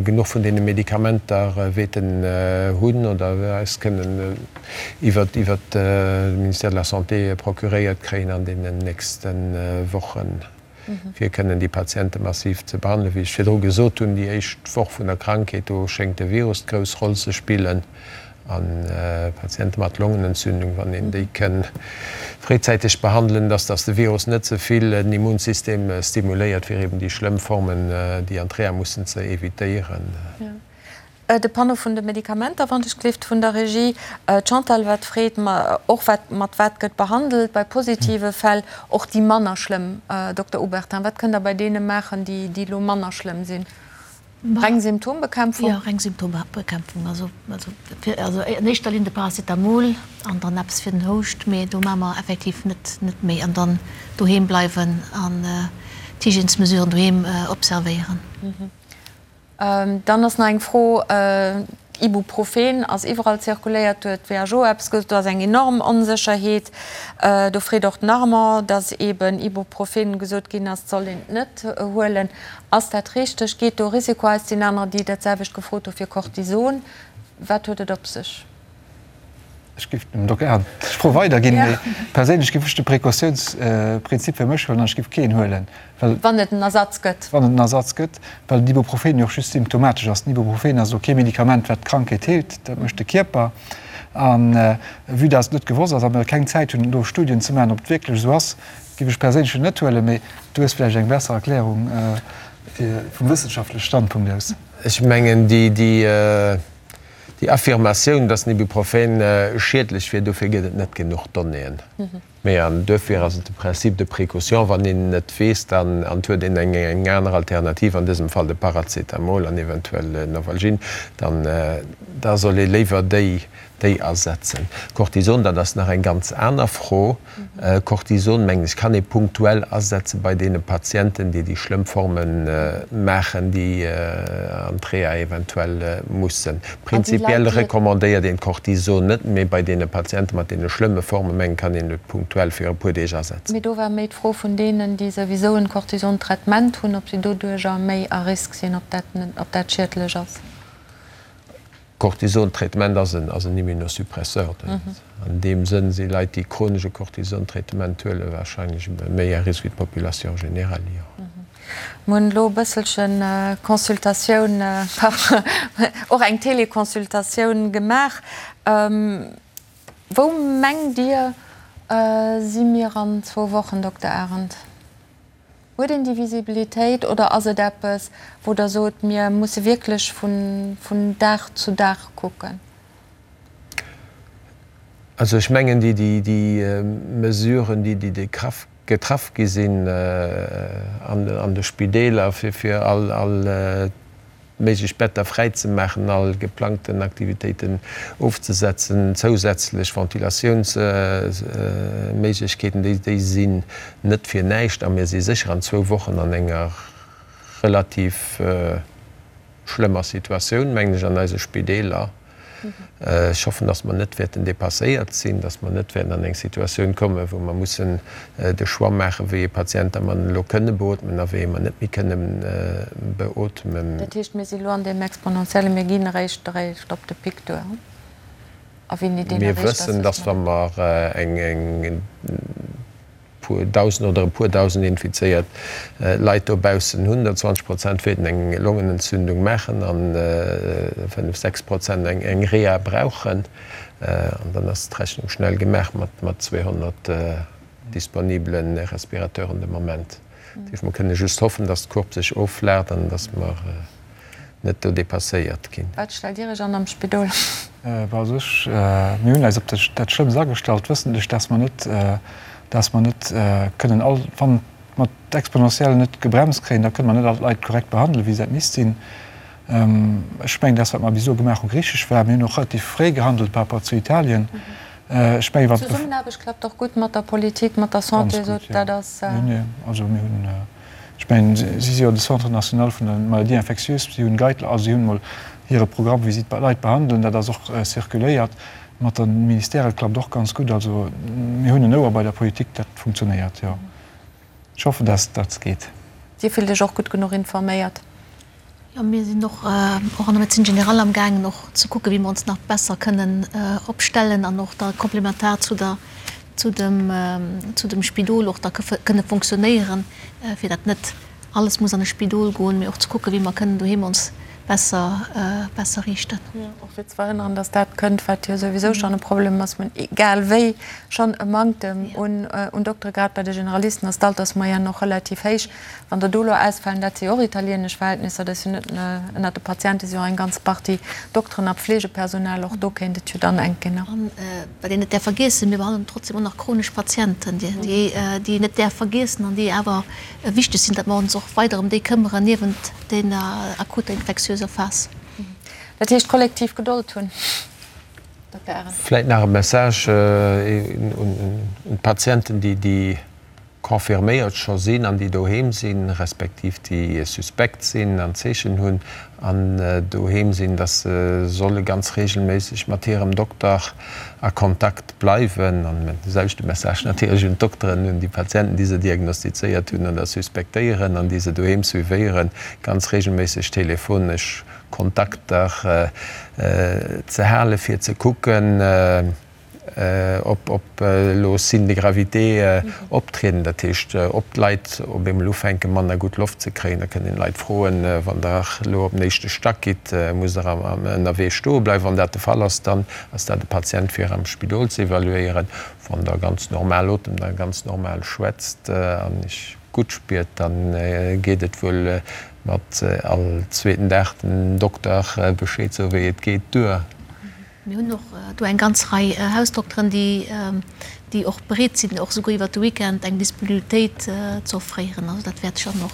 genuch vun deene Medikamenter wäerten hunn oder eis kënnen iwwert, iwwert de Ministère de la Santé procuréiert kréien an deenen nächste Wochen. fir kënnen déi Patiente massiv ze behandelen. Wéi ech virdru gesot hunn, déi éischt Woch vun der Krankheet, do schéngt de Virus d'grouss Roll ze spillen. A Patiente mat Longenentzündung, wann een déi kënn fréizäiteg behandelen, dass dass de Virus net ze vill den Immunsystem stimuléiert, fir eben déi schlëmm Formen, déi an d'Reha mussen, ze evitéieren. De Panneau vun de Medikamenter, wann ech gleeft, vun der Regie. D'Chantal wat freet, ma och wat, mat wat gëtt behandelt bei positive Fäll, och déi manner schlëmm? Dokter Obertin, wat kënnt Der bei deene maachen, déi, déi elo manner schlëmm sinn? Reng Symptombekämpfung? Jo, reng Symptombekämpfung. Also, also fir, also an éischter Linn de Paracetamol an dann eppes fir den Houscht, mee do maache mer effektiv net, net méi. An dann doheem bleiwen an d'Hygiènesmesuren doheem observéieren. Dann ass nach eng Fro, Ibuprofen ass iwwerall zirkuléiert, do huet d'WHO eppes gesot, do ass eng enorm Onsécherheet. Do freet och den Armand, datt eeben Ibuprofen gesot ginn ass, et soll een et net huelen. Ass dat richteg? Geet do Risiko aus? Et sinn anerer, déi dat selwecht gefrot hu fir Cortison. Wat huet et op sech? Ech géif dem Dokter Ernst d'Fro weiderginn, mee perséinlech géif ech de Précautiounsprinzip fir mech huelen an ech géif keen huelen, well. Wann et en Ersatz gëtt. Wann et en Ersatz gëtt, well den Ibuprofen jo och just symptomatesch ass. Den Ibuprofen ass elo kee Medikament, wat d'Krankheet heelt, dat mécht de Kierper. A vue dass et net gewosst ass a mir keng Zäit hunn, elo Studien ze maachen, ob et wierklech esou ass, géif ech perséinlech en net huelen. Mee du hues vläicht eng besser Erklärung vum wëssenschaftleche Standpunkt aus. Ech mengen, déi. Déi Affirmatioun, dass den Ibuprofen schiedlech wier, dofir gëtt et net genuch Donnéeën. Mee, an duerfir ass et de Principe de précaution, wann een net weess, dann, an et huet een eng aner Alternativ, an dësem Fall de Paracetamol an eventuell Novalgin, dann da soll ee léiwer déi, déi asetzen. Cortison, dat ass nach eng ganz aner Fro. Cortison, mengen ech, kann ee punktuell asetze bei deene Patienten, déi déi schlëmm Forme maachen, déi an d'Reha eventuell mussen. Prinzipiell recommandéiert een d'Cortison net, mee bei deene Patiente mat deene schlëmme Forme, mengen, kann een et punktuell fir e puer Deeg asetzen. Mee do war méi d'Fro vun deenen, déi souwisou en Cortison-Traitement hunn, ob si doduerjer méi à risque sinn, ob dat schiedlech ass. Cortison-Traitement ass en ass en Immunosuppresseur. An deem Sënn si Leit, déi chronesch e Cortison-Traitement huelen, warscheinlech méi à risque wéi d'Population générale, jo. Mir hunn elo e bësselche Consultatioun par och eng Téléconsultatioun gemaach. Wou mengt Dir, si mir an zwou Wochen, Dokter Arendt? Huet een déi Visibilitéit oder ass et eppes, wou Der sot, mir musse wierklech vun Dag zu Dag kucken? Also ech mengen, déi Mesuren, déi getraff gi sinn an de Spideeler, fir all méiglech Better fräi ze maachen, all geplangten Aktivitéiten ofzesetzen, zousätzlech Ventilatiounsméiglechkeeten, déi sinn net fir näischt. A mir si sécher an zwou Wochen an enger relativ schlëmmer Situatioun, mengen ech, an eise Spideeler. Ech hoffen, dass mer net wäerten dépasséiert sinn, dass mer net wäerten an eng Situatioun kommen, wou mer mussen de Choix maachen, wéi ee Patient da mer elo kënne beootmen a wéi ee mer net méi kënne beootmen. Dat heescht, mir si elo an deem exponentiellen, mir ginn eréischt eréischt op de Pic duer. A wéini deen Mir erreecht ass, wëssen, wësse dass mer wa net. mer eng puer dausend oder e puer dausend infizéiert Leit dobaussen hunn, der 20 Prozent wäerten eng Longenentzündung maachen an 5, 6 Prozent eng Reha brauchen. An dann ass d'Rechnung schnell gemaach mat 200 disponibele Respirateuren de Moment. Dat heescht, mer kënne just hoffen, dass d'Courbe sech offlaacht an dass mer net do dépasséiert ginn. Wat stellt Dir Iech an am Spidol? Bon, also ech, mir hunn eis op dat Schlëmmst agestallt, wëssentlech, dass mer net, dass mer net kënnen all, wann mer d'Exponentielle net gebremst kréien, da kënne mer net all d'Leit korrekt behandelen, wéi se dat misst sinn. Ech mengen, dass wat mer bis elo gemaach hunn, richteg war. Mir hunn och relativ fréi gehandelt par rapport zu Italien. Ech mengen, wann. D'Zesummenaarbecht klappt och gutt mat der Politik, mat der Santé, Ganz esou gutt, jo. dat ass. Nee, nee, also mir hunn. Ech mengen, si si jo de Centre national vun de Maladies infectieuses, si hunn Guidelines, also si hunn emol hire Programm, wéi si d'Leit behandelen, dat ass och circuléiert. Mat de Ministèrë klappt och ganz gutt. Also mir hunn en Ouer bei der Politik, dat funktionéiert, jo. Ech hoffen, dass dat geet. Dir fillt Iech och gutt genuch informéiert? Jo, mir sinn och och an der Médecine générale amgaangen och ze kucken, wéi mer ons nach besser kënnen opstellen an och da komplementar zu der, zu dem, zu dem Spidol och da kënne fonctionnéieren, fir datt net alles muss an e Spidol goen, mee och ze kucken, wéi mer kënnen doheem ons besser, besser riichten. Jo, och fir ze verhënneren, datt dat kënnt, wat jo souwisou schonn e Problem ass, mä egal wéi schonn e Manktem un, un Doktere, grad bei de Generalisten ass d'Altersmoyenne och relativ héich. Wann der do elo ausfalen, dat si jo och italienesch Verhältnisser, dat ass jo net ënnert de Patiente si jo och eng ganz Partie Dokteren a Pflegepersonal, och do kéint et jo dann enk ginn. An wat een net däerf vergiessen, mir behandelen trotzdem och nach chronesch Patienten, déi een net däerf vergiessen an déi awer wichteg sinn, datt mer ons och weider ëm déi këmmeren niewent deene akuter infektiöser Phas. Dat heescht kollektiv Gedold hunn, Dokter Arendt. Vläit nach e Message un d'Patienten, déi confirméiert scho sinn an déi doheem sinn, respektiv déi suspekt sinn an Zeechen hunn an doheem sinn, dass se solle ganz regelméisseg mat hirem Dokter a Kontakt bleiwen. An de selwechte Message natierlech un d'Dokteren, un déi Patienten, déi se diagnostizéiert hunn oder suspektéieren an déi se doheem suivéieren, ganz regelméisseg telefonesch Kontakter ze hale fir ze kucken, ob elo Signes de gravité optrieden, dat heescht, ob d'Leit op eemol ufänke manner gutt Loft ze kréien. Da kënnt een d'Leit froen, Wann Der elo op den éischte Stack gitt, musst Der ënnerwee stoe bleiwen? Wann dat de Fall ass, dann ass dat e Patient fir am Spidol ze evaluéieren. Wann Der ganz normal otemt a ganz normal schwätzt an Iech gutt spiert, da geet et wuel mat all zweeten Dag den Dokter Bescheed soen, wéi et geet, duer. Mir hunn och do eng ganz Rei Hausdokteren, déi och bereet sinn, och souguer iwwert de Weekend eng Disponibilitéit ze offréieren. Also dat wäert sech dann och,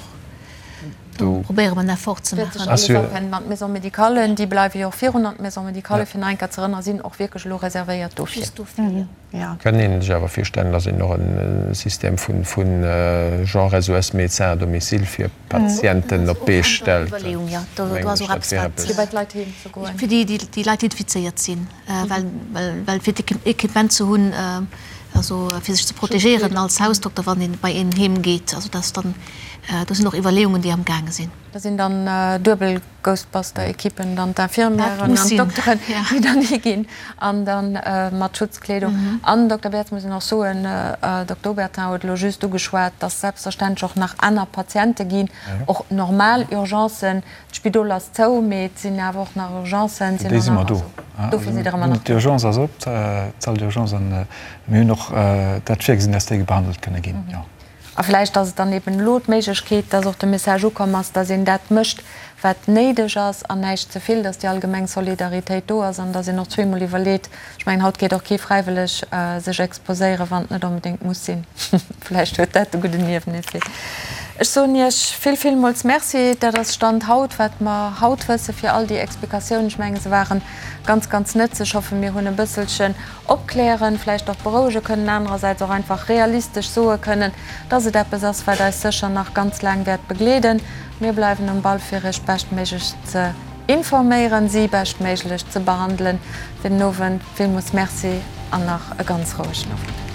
do probéiere mer en Effort ze maachen. Wäert sech alles afänden. An d'Maisons médicales, déi bleiwe jo och virun. An d'Maisons médicales, fir nach eng Kéier ze erënneren, sinn och wierklech elo reservéiert dofir. Just dofir, jo. Kann een sech awer virstellen, dass een och e System vu genre SOS Médecins à domicile fir Patienten op d'Bee stellt. Fir bei d'Leit heem ze goen. Fir déi Leit, déi infizéiert sinn, well fir d'Equipement ze hunn, also fir sech ze protegéieren als Hausdokter, wann een bei een heem geet. Also dass dann, do sinn och Iwwerleeungen, déi am gaange sinn. Dat sinn dann duebel Ghostbuster-Equippen, dann d'Infirmièren an d'Dokteren, déi dann higinn an da mat Schutzkleedung. An, Dokter Bertz, muss een och soen, Dokter Obertin huet elo just ugeschwat, dass selbstverständlech och nach aner Patiente ginn, och normal Urgencen. D'Spidol ass zou, mee et sinn awer och nach Urgencen. Fir déi si mer do. Dofir sidd Der ëmmer nach do. D'Urgence ass op, d'Salle d'urgence, an mir hunn och dat virgesinn, dass déi behandelt kënne ginn, jo. A vläicht ass et dann eben elo d'Méiglechkeet, dass och de Message ukomm ass, dass een dat mécht, wat néideg ass an näischt ze vill, dass déi allgemeng Solidaritéit do ass an dass een och zweemol iwwerleet. Ech mengen, haut geet och kee fräiwëlleg sech exposéieren, wann et net onbedéngt muss sinn. Vläicht huet dat de gudden Nieweneffet. Ech soen Iech vill, villmools Merci. Dat ass Stand haut, wat mer haut wëssen, fir all déi Explikatiounen. Ech mengen, se ware ganz, ganz nëtzlech. Ech hoffen, mir hunn e bësselchen opklären, vläicht och berouege kënnen, anerersäits och einfach realistesch soe kënnen, dass et eppes ass, wat eis sécher nach ganz laang wäert begleeden. Mir bleiwen um Ball, fir Iech beschtméiglechst ze. Informéieren, si beschtméiglech ze behandelen. Fir den Owend villmools Merci an nach e ganz rouegen Owend.